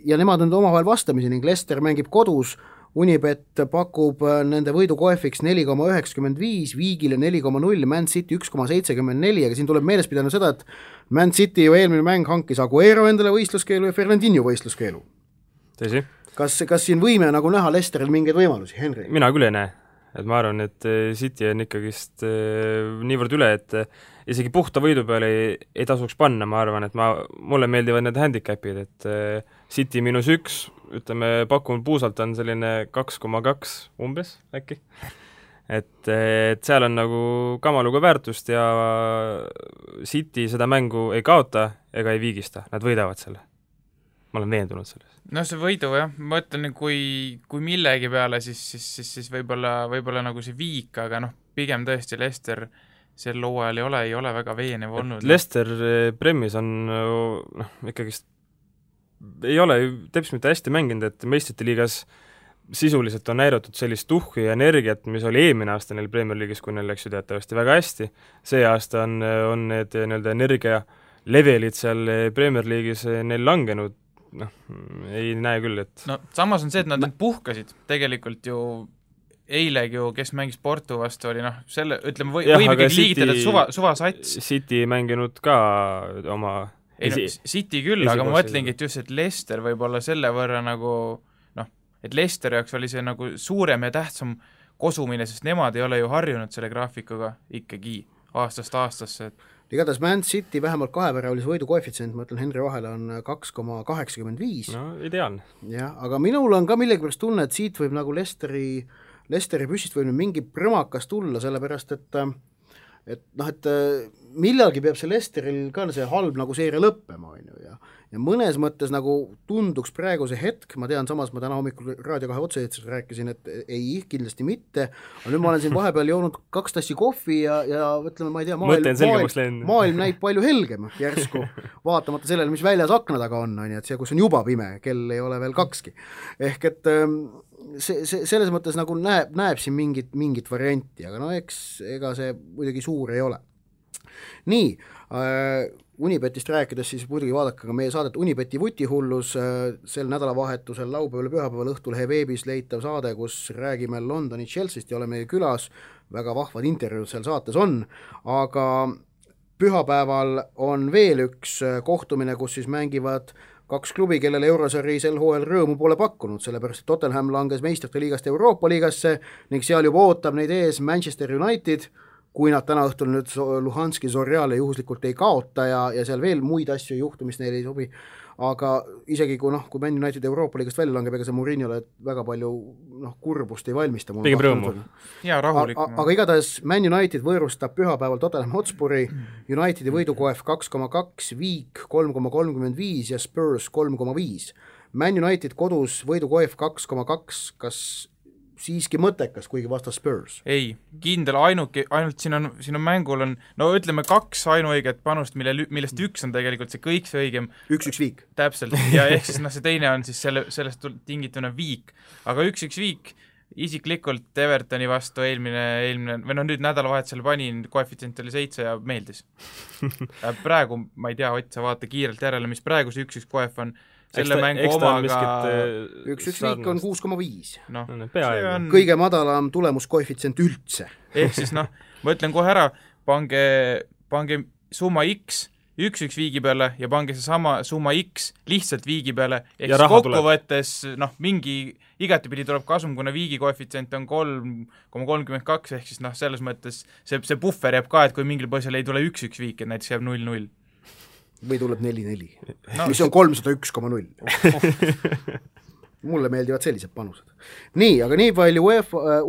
ja nemad on omavahel vastamisi ning Leicester mängib kodus, Unibet pakub nende võidukoefiks 4,95, Viigile 4,0, Man City 1,74, aga siin tuleb meeles pidanud seda, et Man City ju eelmine mäng hankis Aguero endale võistluskeelu ja Fernandinho võistluskeelu. Tõsi? Kas siin võime nagu näha Leicesteril mingeid võimalusi, Henry? Mina küll ei näe, et ma arvan, et City on ikkagist niivõrd üle, et isegi puhta võidu peale ei tasuks panna, ma arvan, et mulle meeldivad need handicapid, et City -1, ütleme, pakun puusalt on selline 2,2 umbes äkki. Et seal on nagu kamaluga väärtust ja City seda mängu ei kaota ega ei viigista, nad võidavad selle. Ma olen veendunud selles. No see võidu jah, ma ütlen, kui millegi peale, siis võib-olla nagu see viik, aga pigem tõesti Leicester sel hooajal ei ole väga veenev olnud. Leicester Premis on ikkagist ei ole teps mitte hästi mänginud, et meistrite liigas sisuliselt on näidatud sellist tuhku ja energiat, mis oli eelmine aasta neil Premier League'is, kui neil läks ju teatavasti väga hästi. See aasta on need energia levelid seal Premier League'is neil langenud, ei näe küll, et samas on see, et nad puhkasid tegelikult ju eilegi ju, kes mängis Porto vastu, oli selle, ütleme, võib ikkagi liigitada, et suvasats. City mänginud ka oma City küll, aga ma mõtlengi, et just, et Leicester võib olla selle võrra nagu, et Leicester jaoks oli see nagu suurem ja tähtsam kosumine, sest nemad ei ole ju harjunud selle graafikuga ikkagi aastast aastasse. Igatahes Man City vähemalt 2-väravalis võidu koefitsient, ma ütlen, Henry vahele on 2,85. No, ideaalne. Ja, aga minul on ka millegipärast tunne, et siit võib nagu Leicesteri püssist võib mingi prõmakas tulla, sellepärast, et millalgi peab see Leicesteril ka see halb nagu seeria lõppema, ja mõnes mõttes nagu tunduks praegu see hetk, ma tean, samas ma täna hommikul Raadio 2 otse rääkisin, et ei, kindlasti mitte, aga nüüd ma olen siin vahepeal joonud 2 tassi kohvi ja ütleme, ma ei tea, maailm näib palju helgem järsku, vaatamata sellele, mis väljas akna taga on, et see, kus on juba pime, kell ei ole veel 2. Ehk et selles mõttes nagu näeb siin mingit varianti, aga ega see muidugi suur ei ole. Nii, Unibetist rääkides siis muidugi vaadake ka meie saadet Unibeti vutihullus, sel nädalavahetusel laupäeval pühapäeval Õhtulehe veebis leitav saade, kus räägime Londoni Chelseast ja oleme külas, väga vahvad intervjuud seal saates on, aga pühapäeval on veel üks kohtumine, kus siis mängivad 2 klubi, kellele Eurosari sel hooajal rõõmu pole pakkunud, sellepärast et Tottenham langes meistrite liigast Euroopa liigasse ning seal juba ootab neid ees Manchester United, kui nad täna õhtul nüüd Luhanski Zorjale juhuslikult ei kaota ja seal veel muid asju ei juhtu, mis neile ei sobi, aga isegi kui Man United Euroopa liigast välja langeb, ega see Mourinhole väga palju kurbust ei valmista. Pigem rõõmu. Ja rahulikum. Aga igatahes Man United võõrustab pühapäeval Tottenham Hotspuri, Unitedi võidukoef 2,2, Viik 3,35 ja Spurs 3,5. Man United kodus võidukoef 2,2, kas siiski mõttekas, kuigi vastas Spurs? Ei, kindel, ainult siin on mängul ütleme 2 ainuõiget panust, millest üks on tegelikult see kõik see õigem. 1-1 Viik. Täpselt, ja ehk siis see teine on siis sellest tingituna Viik. Aga 1-1 Viik isiklikult Evertoni vastu eelmine nüüd nädalavahetusel panin, koefitsient oli 7 ja meeldis. Praegu, ma ei tea, Ott, sa vaata kiirelt järele, mis praegu see 1-1 koef on. Selle mängu omaga 1-1 Viik on 6,5. On kõige madalam tulemuskoefitsient üldse. Ehk siis ma ütlen kohe ära, pange summa X 1-1 Viigi peale ja pange see sama summa X lihtsalt Viigi peale, ehk siis kokkuvõttes mingi igatepidi tuleb kasum, kuna Viigi koefitsient on 3,32, ehk siis selles mõttes see puffer jääb ka, et kui mingil põhjusel ei tule 1-1 Viik, et näiteks jääb 0-0 või tuleb 4-4, mis on 301,0. Mulle meeldivad sellised panused. Nii, aga nii palju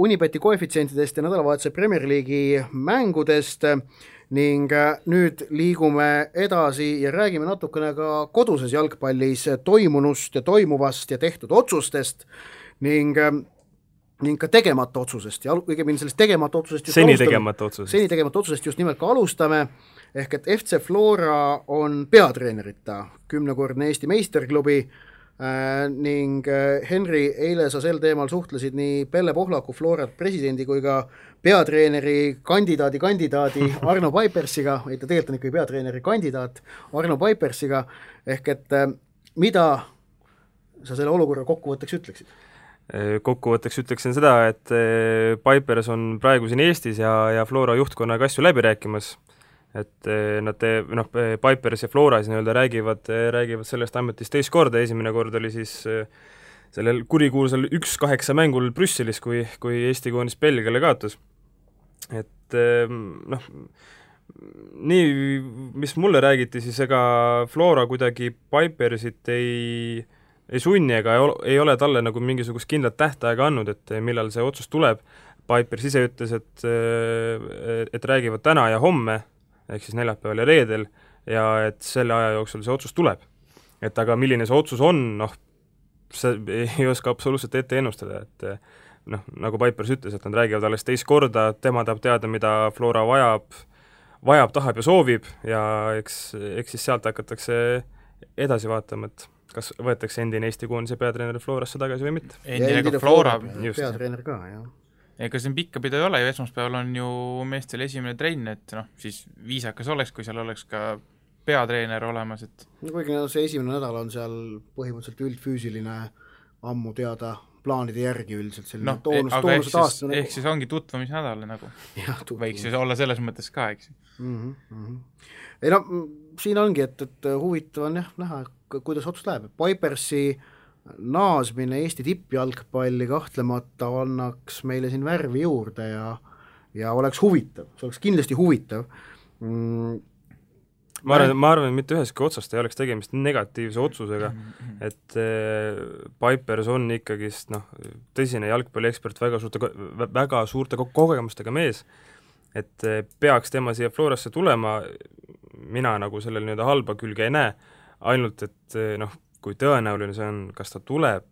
Unibeti koefitsientidest ja nädalavahetuse Premier League'i mängudest ning nüüd liigume edasi ja räägime natukene ka koduses jalgpallis toimunust ja toimuvast ja tehtud otsustest ning ka tegemata otsusest ja õigemini sellest tegemata otsusest seni tegemata otsusest just nimelt ka alustame, ehk et FC Flora on peatreenerita 10-kordne Eesti meisterklubi ning Henri, eile sa sel teemal suhtlesid nii Pelle Pohlaku Florat presidendi kui ka peatreeneri kandidaadi Arno Paipersiga, ta tegelikult on ikkagi peatreeneri kandidaat Arno Paipersiga, ehk et mida sa selle olukorra kokkuvõtteks ütleksid? Kokkuvõtteks ütleksin seda, et Pipers on praegu siin Eestis ja Flora juhtkonnaga asju läbi rääkimas, et nad Pipers ja Flora siis räägivad sellest ametist teist korda, esimene kord oli siis sellel kurikuulsal 1-8 mängul Brüsselis, kui Eesti koondis Belgiale kaotas. Et nii, mis mulle räägiti, siis ega Flora kuidagi Pipersit ei sunni ega ei ole talle nagu mingisugust kindlat tähtaega andnud, et millal see otsus tuleb. Pipers ise ütles, et räägivad täna ja homme, ehk siis neljapäeval ja reedel, ja et selle aja jooksul see otsus tuleb. Et aga milline see otsus on, see ei oska absoluutselt ette ennustada, et nagu Pipers ütles, et nad räägivad alles teist korda, tema tahab teada, mida Flora vajab, tahab ja soovib, ja eks siis sealt hakatakse edasi vaatama, et kas võetakse endine Eesti koondise peatreener Florasse tagasi või mitte. Endine Flora peatreener ka, jah. Ega siin pikka pidu ei ole ju, esmaspäeval on ju meestel esimene trenn, et siis viisakas oleks, kui seal oleks ka peatreener olemas, et kuigi see esimene nädal on seal põhimõtteliselt üldfüüsiline ammu teada plaanide järgi üldiselt selline toonused aastane. Ehk siis ongi tutvumisnädal nagu. Võiks ju olla selles mõttes ka, eks. Ei siin ongi, et huvitav on näha, kuidas otsus läheb. Pipersi naasmine Eesti tippjalgpalli kahtlemata annaks meile siin värvi juurde ja oleks huvitav, see oleks kindlasti huvitav. Ma arvan, et mitte üheski otsast ei oleks tegemist negatiivse otsusega, et Pipers on ikkagist tõsine jalgpalliekspert, väga suurte kogemustega mees, et peaks tema siia Florasse tulema, mina nagu sellel halba külge ei näe, ainult et kui tõenäoline see on, kas ta tuleb,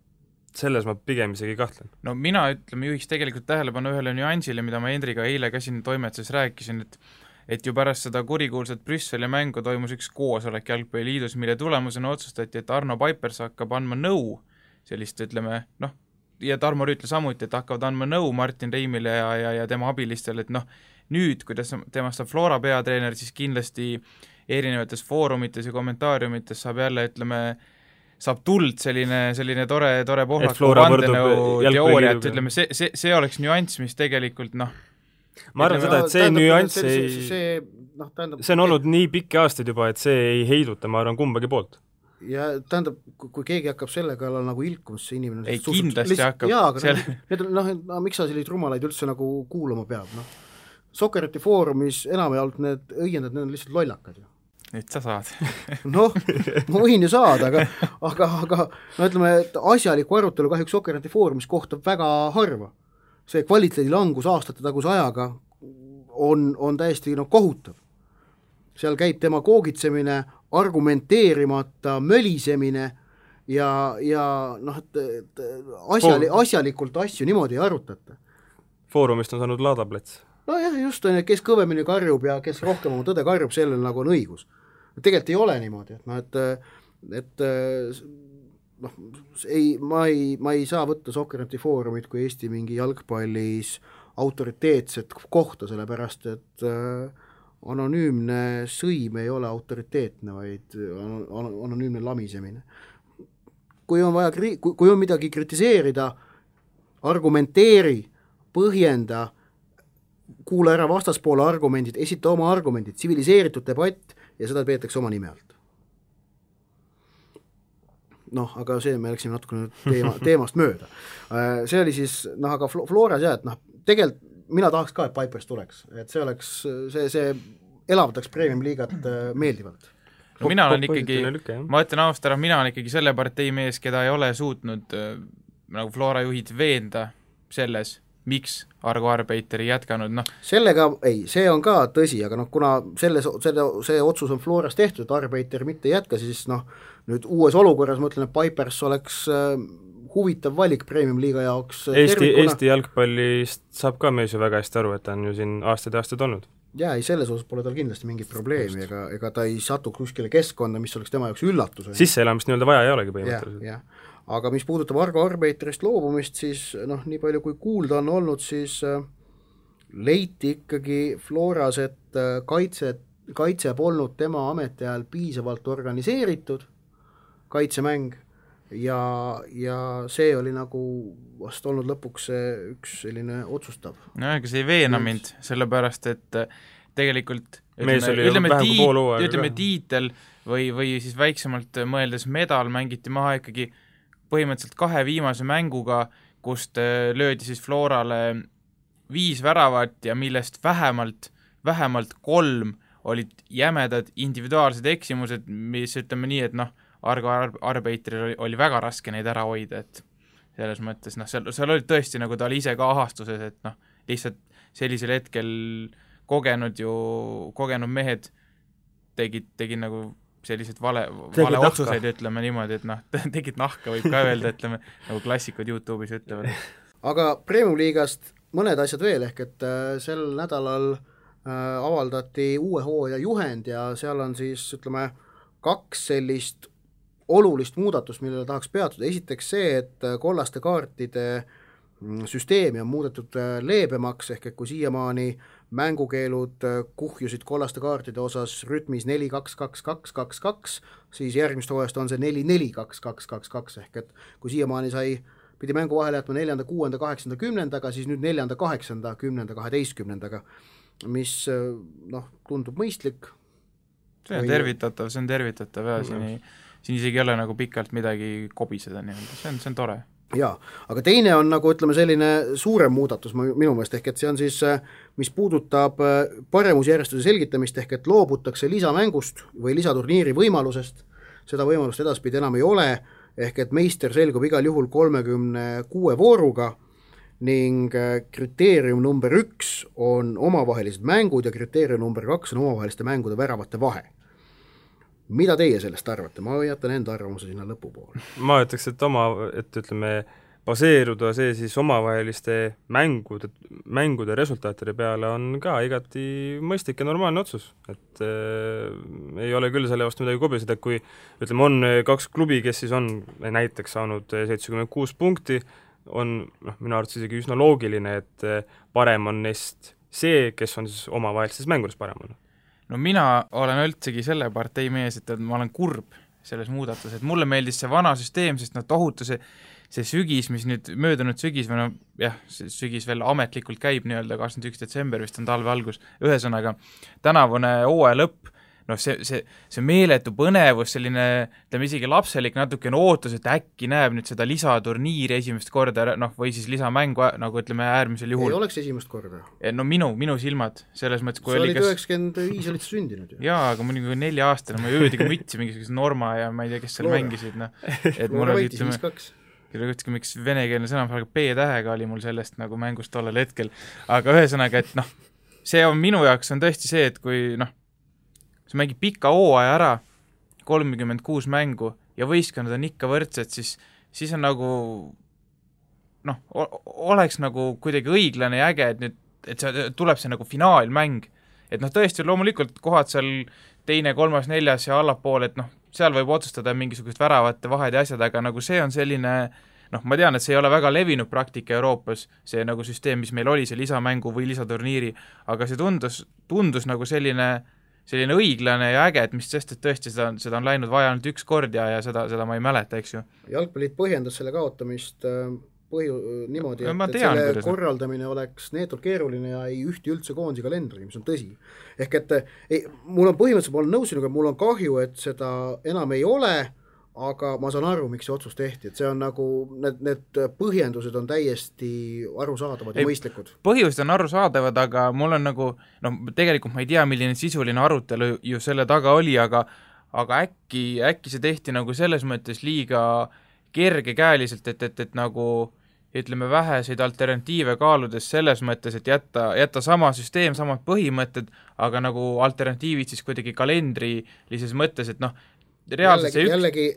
selles ma pigem isegi kahtlen. Mina juhiks tegelikult tähelepanu ühele nüansile, mida ma Hendriga eile ka siin toimetuses rääkisin, et ju pärast seda kurikuulsat Brüsseli mängu toimus üks koosolek Jalgpalliliidus, mille tulemusena otsustati, et Arno Pipers hakkab andma nõu sellist, ütleme, ja Tarmo Rüütla samuti, et hakkavad andma nõu Martin Reimile ja tema abilistele, nüüd, kuidas temast saab Flora peatreener, siis kindlasti erinevates foorumites ja kommentaariumites saab jälle, ütleme, saab tuld selline tore Pohlaku vandenõu teooria, et ütleme, see oleks nüanss, mis tegelikult ma arvan seda, et see nüanss see on olnud nii pikki aastaid juba, et see ei heiduta, ma arvan, kumbagi poolt. Ja tähendab, kui keegi hakkab selle kallal nagu ilkumas, see inimene ei, kindlasti hakkab. Jaa, aga miks sa selliseid rumalaid üldse nagu kuulama peab, Soccereti foorumis enamjaolt need õiendad, need on lihtsalt lollakad ju. Nüüd sa saad. Ma võin ju saada, aga ütleme, et asjaliku arutelu kahjuks Soccereti foorumis kohtab väga harva. See kvaliteedi langus aastate taguse ajaga on täiesti kohutav. Seal käib tema koogitsemine, argumenteerimata mölisemine ja asjalikult asju niimoodi ei arutata. Foorumist on saanud laadaplets. Jah, just on, kes kõvemini karjub ja kes rohkem oma tõde karjub, sellel nagu on õigus. Tegelikult ei ole niimoodi, ma ei saa võtta Soccerneti foorumit kui Eesti mingi jalgpallis autoriteetset kohta, sellepärast et anonüümne sõim ei ole autoriteetne, vaid anonüümne lamisemine. Kui on midagi kritiseerida, argumenteeri, põhjenda, kuula ära vastaspoole argumendid, esita oma argumendid, tsiviliseeritud debatt ja seda peetakse oma nime alt. Aga see me läksime natuke teemast mööda. See oli siis, aga Floras et tegelikult mina tahaks ka, et Pipers tuleks, et see oleks, see elavdaks Premium liigat meeldivalt. No mina olen ikkagi, ma ütlen ausalt ära, mina olen ikkagi selle partei mees, keda ei ole suutnud nagu Flora juhid veenda selles, miks Argo Arbeiter ei jätkanud, Sellega, see on ka tõsi, aga kuna see otsus on Floras tehtud, et Arbeiter mitte jätka, siis nüüd uues olukorras ma ütlen, et Pipers oleks huvitav valik Premium liiga jaoks. Eesti jalgpallist saab ka mees ju väga hästi aru, et ta on ju siin aastaid olnud. Jaa, selles osas pole tal kindlasti mingit probleemi, ega ta ei satu kuskile keskkonda, mis oleks tema jaoks üllatus. Sisseelamist nii-öelda vaja ei olegi põhimõtteliselt. Aga mis puudutab Argo Arbeiterist loobumist, siis nii palju kui kuulda on olnud, siis leiti ikkagi Floras, et kaitse polnud tema ametiajal piisavalt organiseeritud kaitsemäng ja see oli nagu vast olnud lõpuks üks selline otsustav. Ega see ei veena mind, sellepärast et tegelikult ütleme tiitel või siis väiksemalt mõeldes medal mängiti maha ikkagi põhimõtteliselt 2 viimase mänguga, kust löödi siis Florale 5 väravat ja millest vähemalt 3 olid jämedad individuaalsed eksimused, mis ütleme nii, et Argo Arbeiteril oli väga raske neid ära hoida, et selles mõttes, seal olid tõesti nagu ta oli ise ka ahastuses, et lihtsalt sellisel hetkel kogenud mehed tegid nagu sellised vale otsuseid, ütleme niimoodi, et tegid nahka, võib ka öelda, ütleme, nagu klassikud YouTube'is ütlevad. Aga Premium liigast mõned asjad veel, ehk et sel nädalal avaldati uue hooaja juhend ja seal on siis, ütleme, 2 sellist olulist muudatust, millele tahaks peatuda. Esiteks see, et kollaste kaartide süsteemi on muudetud leebemaks, ehk et kui siiamaani mängukeelud kuhjusid kollaste kaartide osas rütmis 4-2-2-2-2-2, siis järgmist hooajast on see 4-4-2-2-2-2, ehk et kui siiamaani pidi mängu vahele jätma 4., 6., 8., 10., siis nüüd 4., 8., 10., 12., mis tundub mõistlik. See on tervitatav ja siin isegi ei ole nagu pikalt midagi kobiseda, see on tore. Jaa, aga teine on nagu ütleme selline suurem muudatus minu meelest, ehk et see on siis, mis puudutab paremusjärjestuse selgitamist, ehk et loobutakse lisamängust või lisaturniiri võimalusest, seda võimalust edaspidi enam ei ole, ehk et meister selgub igal juhul 36 vooruga ning kriteerium number 1 on omavahelised mängud ja kriteerium number 2 on omavaheliste mängude väravate vahe. Mida teie sellest arvate? Ma jätan enda arvamuse sinna lõpupoole. Ma ütleks, et ütleme, baseeruda see siis omavaheliste mängude resultaatide peale on ka igati mõistlik ja normaalne otsus. Et ei ole küll selle vastu midagi kobiseda, kui ütleme, on 2 klubi, kes siis on näiteks saanud 76 punkti, on minu arvates isegi üsna loogiline, et parem on neist see, kes on siis omavahelistes mängudes parem olnud. No mina olen üldsegi selle partei mees, et ma olen kurb selles muudatus, et mulle meeldis see vana süsteem, sest tohutu see sügis, mis nüüd möödunud sügis või see sügis veel ametlikult käib nii-öelda 21. detsember, vist on talve algus, ühesõnaga tänavune hooaja lõpp, see meeletu põnevus, selline, ütleme isegi lapselik natukene ootus, et äkki näeb nüüd seda lisaturniiri esimest korda, või siis lisamängu, nagu ütleme äärmisel juhul. Ei oleks esimest korda. No minu silmad, selles mõttes, kui sa olid 95 olid sündinud ju. Jaa, aga ma olin 4 aastane, ma jõudigi mütsi mingisuguse Norma ja ma ei tea, kes seal mängisid, et mul oli, ütleme, miks venekeelne sõna, aga P-tähega oli mul sellest nagu mängust tollel hetkel, aga ühesõnaga, et see on minu jaoks on tõesti see, et kui sa mängid pika hooaja ära, 36 mängu ja võistkonnad on ikka võrdsed, siis on nagu oleks nagu kuidagi õiglane ja äge, et see tuleb see nagu finaalmäng. Et tõesti loomulikult kohad seal 2., 3., 4. ja allapool, et seal võib otsustada mingisugust väravate vahed ja asjad, aga nagu see on selline, ma tean, et see ei ole väga levinud praktika Euroopas, see nagu süsteem, mis meil oli, see lisamängu või lisaturniiri, aga see tundus nagu selline õiglane ja äge, et mis sest, et tõesti seda on läinud vaja ainult üks kord ja seda ma ei mäleta, eks ju. Jalgpalliit põhjendas selle kaotamist niimoodi, et selle korraldamine oleks neetult keeruline ja ei ühti üldse koondise kalendri, mis on tõsi. Ehk et mul on põhimõtteliselt, ma olen nõus sinuga, mul on kahju, et seda enam ei ole, aga ma saan aru, miks see otsus tehti, et see on nagu, need põhjendused on täiesti arusaadavad ja mõistlikud. Põhjused on arusaadavad, aga mul on nagu, tegelikult ma ei tea, milline sisuline arutelu ju selle taga oli, aga äkki see tehti nagu selles mõttes liiga kergekäeliselt, et nagu ütleme väheseid alternatiive kaaludes selles mõttes, et jätta sama süsteem, samad põhimõtted, aga nagu alternatiivid siis kuidagi kalendrilises mõttes, et jällegi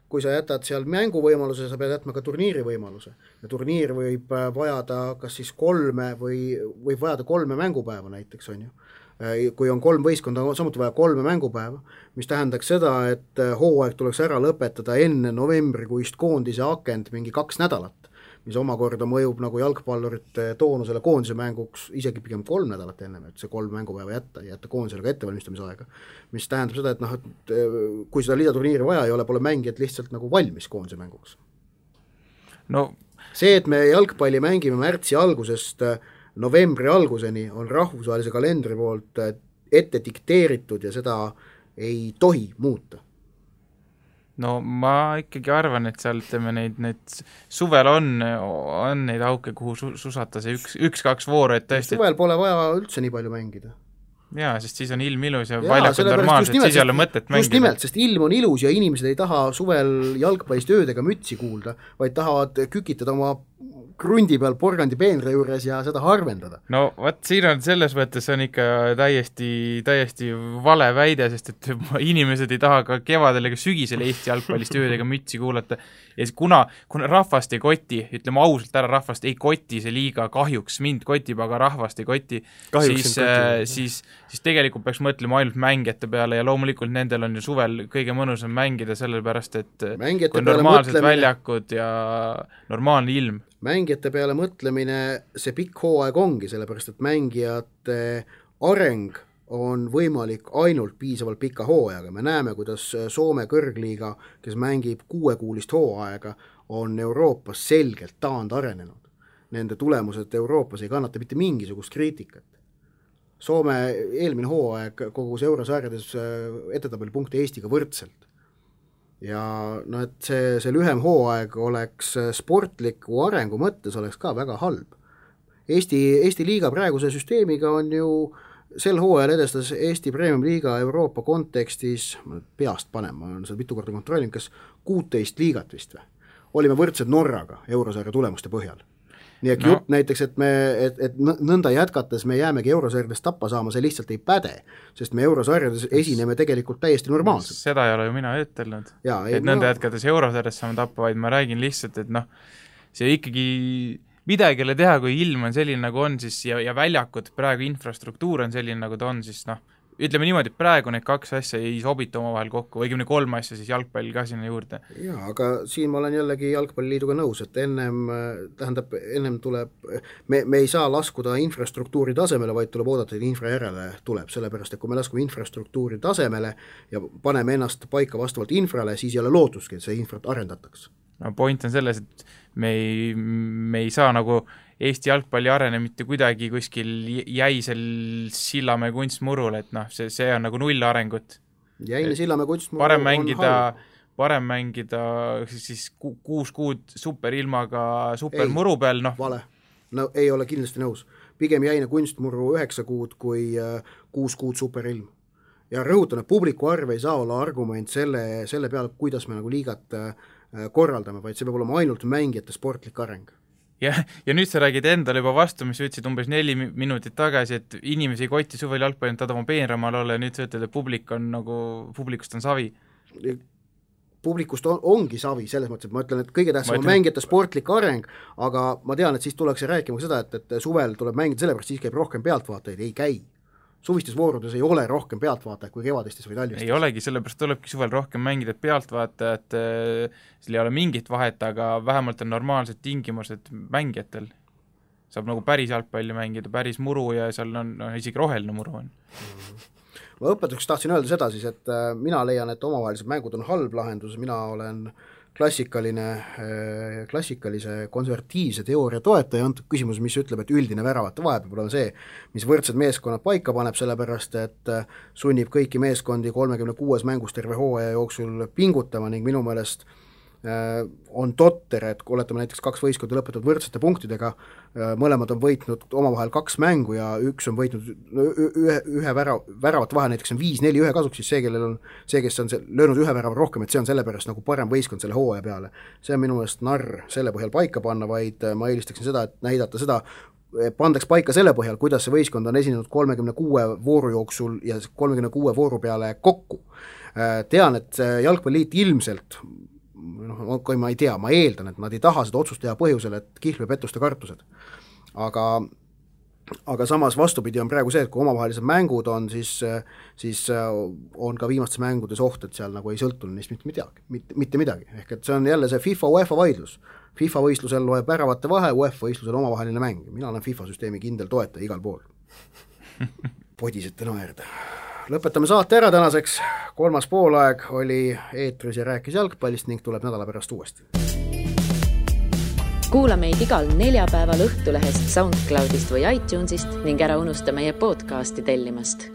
kui sa jätad seal mänguvõimaluse, sa pead jätma ka turniiri võimaluse. Ja turniir võib vajada kas siis 3 või võib vajada 3 mängupäeva näiteks, on ju. Kui on 3 võistkonda, samuti vaja 3 mängupäeva, mis tähendaks seda, et hooaeg tuleks ära lõpetada enne novembrikuist koondise akent mingi 2 nädalat, mis omakorda mõjub nagu jalgpallurite toonusele koondise mänguks isegi pigem 3 nädalat ennem, et see 3 mängupäeva jätta koondisele ka ettevalmistamisaega, mis tähendab seda, et kui seda lisaturniiri vaja ei ole, pole mängijad lihtsalt nagu valmis koondise mänguks. See, et me jalgpalli mängime märtsi algusest novembri alguseni, on rahvusvahelise kalendri poolt ette dikteeritud ja seda ei tohi muuta. Ma ikkagi arvan, et seal ütleme need suvel on neid auke, kuhu susata see 1-2 vooru, et tõesti... Suvel pole vaja üldse nii palju mängida. Jaa, sest siis on ilm ilus ja väljakud normaalsed, siis ei ole mõtet mängida. Just nimelt, sest ilm on ilus ja inimesed ei taha suvel jalgpallist öödega mütsi kuulda, vaid tahavad kükitada oma krundi peal porgandi peenre juures ja seda harvendada. Siin on selles mõttes on ikka täiesti vale väide, sest et inimesed ei taha ka kevadel ega sügisel Eesti jalgpallist öödega mütsi kuulata. Ja kuna rahvast ei koti, ütleme ausalt ära, rahvast ei koti see liiga, kahjuks mind kotib, aga rahvast ei koti, siis tegelikult peaks mõtlema ainult mängijate peale ja loomulikult nendel on ju suvel kõige mõnusam mängida, sellepärast et kui normaalsed väljakud ja normaalne ilm. Mängijate peale mõtlemine see pikk hooaeg ongi, sellepärast et mängijate areng on võimalik ainult piisavalt pika hooajaga. Me näeme, kuidas Soome kõrgliiga, kes mängib 6-kuulist hooaega, on Euroopas selgelt taandarenenud. Nende tulemused Euroopas ei kannata mitte mingisugust kriitikat. Soome eelmine hooaeg kogus eurosarjades edetabelipunkte Eestiga võrdselt. Ja et see lühem hooaeg oleks sportliku arengu mõttes oleks ka väga halb. Eesti liiga praeguse süsteemiga on ju sel hooajal edestas Eesti Premium Liiga Euroopa kontekstis, peast panen, ma olen seda mitu korda kontrollin, kas 16 liigat vist või? Olime võrdsed Norraga eurosarja tulemuste põhjal. Nii et jutt näiteks, et nõnda jätkates me jäämegi eurosarjadest tappa saama, see lihtsalt ei päde, sest me eurosarjades esineme tegelikult täiesti normaalselt. Seda ei ole ju mina ütelnud, et nõnda jätkates eurosarjadest saame tappa, vaid ma räägin lihtsalt, et see ikkagi midagile teha, kui ilm on selline nagu on, siis ja väljakud, praegu infrastruktuur on selline nagu ta on, siis ütleme niimoodi, et praegu need kaks asja ei sobita omavahel kokku, õigemini 3 asja siis jalgpall ka sinna juurde. Jaa, aga siin ma olen jällegi jalgpalliliiduga nõus, et ennem tuleb, me ei saa laskuda infrastruktuuri tasemele, vaid tuleb oodata, et infra järele tuleb, sellepärast, et kui me laskume infrastruktuuri tasemele ja paneme ennast paika vastavalt infrale, siis ei ole lootuski, et see infrat arendataks. No point on selles, et me ei saa nagu Eesti jalgpalli arene mitte kuidagi kuskil jäisel Sillamäe kunstmurul, et noh, see on nagu null arengut. Jäine Sillamäe kunstmurul parem mängida siis 6 kuud superilmaga supermuru peal, noh. Vale, no ei ole kindlasti nõus. Pigem jäine kunstmuru 9 kuud kui 6 kuud superilm. Ja rõhutan, et publiku arv ei saa olla argument selle peale, kuidas me nagu liigat korraldame, vaid see peab olema ainult mängijate sportlik areng. Ja nüüd sa räägid endale juba vastu, mis ütlesid umbes 4 minutit tagasi, et inimesi ei kotti suvel jalgpalli, ta oma peenramal olla ja nüüd sa ütled, et publikust on savi. Publikust ongi savi, selles mõttes, et ma ütlen, et kõige tähtsam on mängijate sportlik areng, aga ma tean, et siis tuleks rääkima seda, et suvel tuleb mängida sellepärast, siis käib rohkem pealtvaatajaid, ei käi. Suvistes voorudes ei ole rohkem pealtvaatajaid kui kevadistes või talvistes. Ei olegi, sellepärast tulebki suvel rohkem mängida, et pealtvaatajad, seal ei ole mingit vahet, aga vähemalt on normaalsed tingimused mängijatel. Saab nagu päris jalgpalli mängida, päris muru ja seal on isegi roheline muru on. Ma õpetuseks tahtsin öelda seda siis, et mina leian, et omavahelised mängud on halb lahendus, mina olen klassikalise konservatiivse teooria toetaja antud küsimus, mis ütleb, et üldine väravate vahe peab olema see, mis võrdsed meeskonnad paika paneb, sellepärast et sunnib kõiki meeskondi 36 mängus terve hooaja jooksul pingutama ning minu meelest on totter, et kui oletame näiteks 2 võistkonda lõpetavad võrdsete punktidega, mõlemad on võitnud omavahel 2 mängu ja üks on võitnud ühe väravate vahe, näiteks on 5-4-1 kasuks, siis see, kes on löönud ühe värava rohkem, et see on sellepärast nagu parem võistkond selle hooaja peale. See on minu meelest narr selle põhjal paika panna, vaid ma eelistaksin seda, et näidata seda, pandaks paika selle põhjal, kuidas see võistkond on esinenud 36 vooru jooksul ja 36 vooru peale kokku. Tean, et jalgpalliliit ilmselt kui ma ei tea, ma eeldan, et nad ei taha seda otsust teha põhjusel, et kihlve pettuste kartused. Aga samas vastupidi on praegu see, et kui omavahelised mängud on, siis on ka viimastes mängudes oht, et seal nagu ei sõltu neist mitte midagi. Ehk et see on jälle see FIFA UEFA vaidlus. FIFA võistlusel loeb väravate vahe, UEFA võistlusel omavaheline mäng. Mina olen FIFA süsteemi kindel toetaja igal pool. Podisete naerda. Lõpetame saate ära tänaseks, 3. poolaeg oli eetris ja rääkis jalgpallist ning tuleb nädala pärast uuesti. Kuula meid igal neljapäeval Õhtulehest, SoundCloudist või iTunesist ning ära unusta meie podcasti tellimast.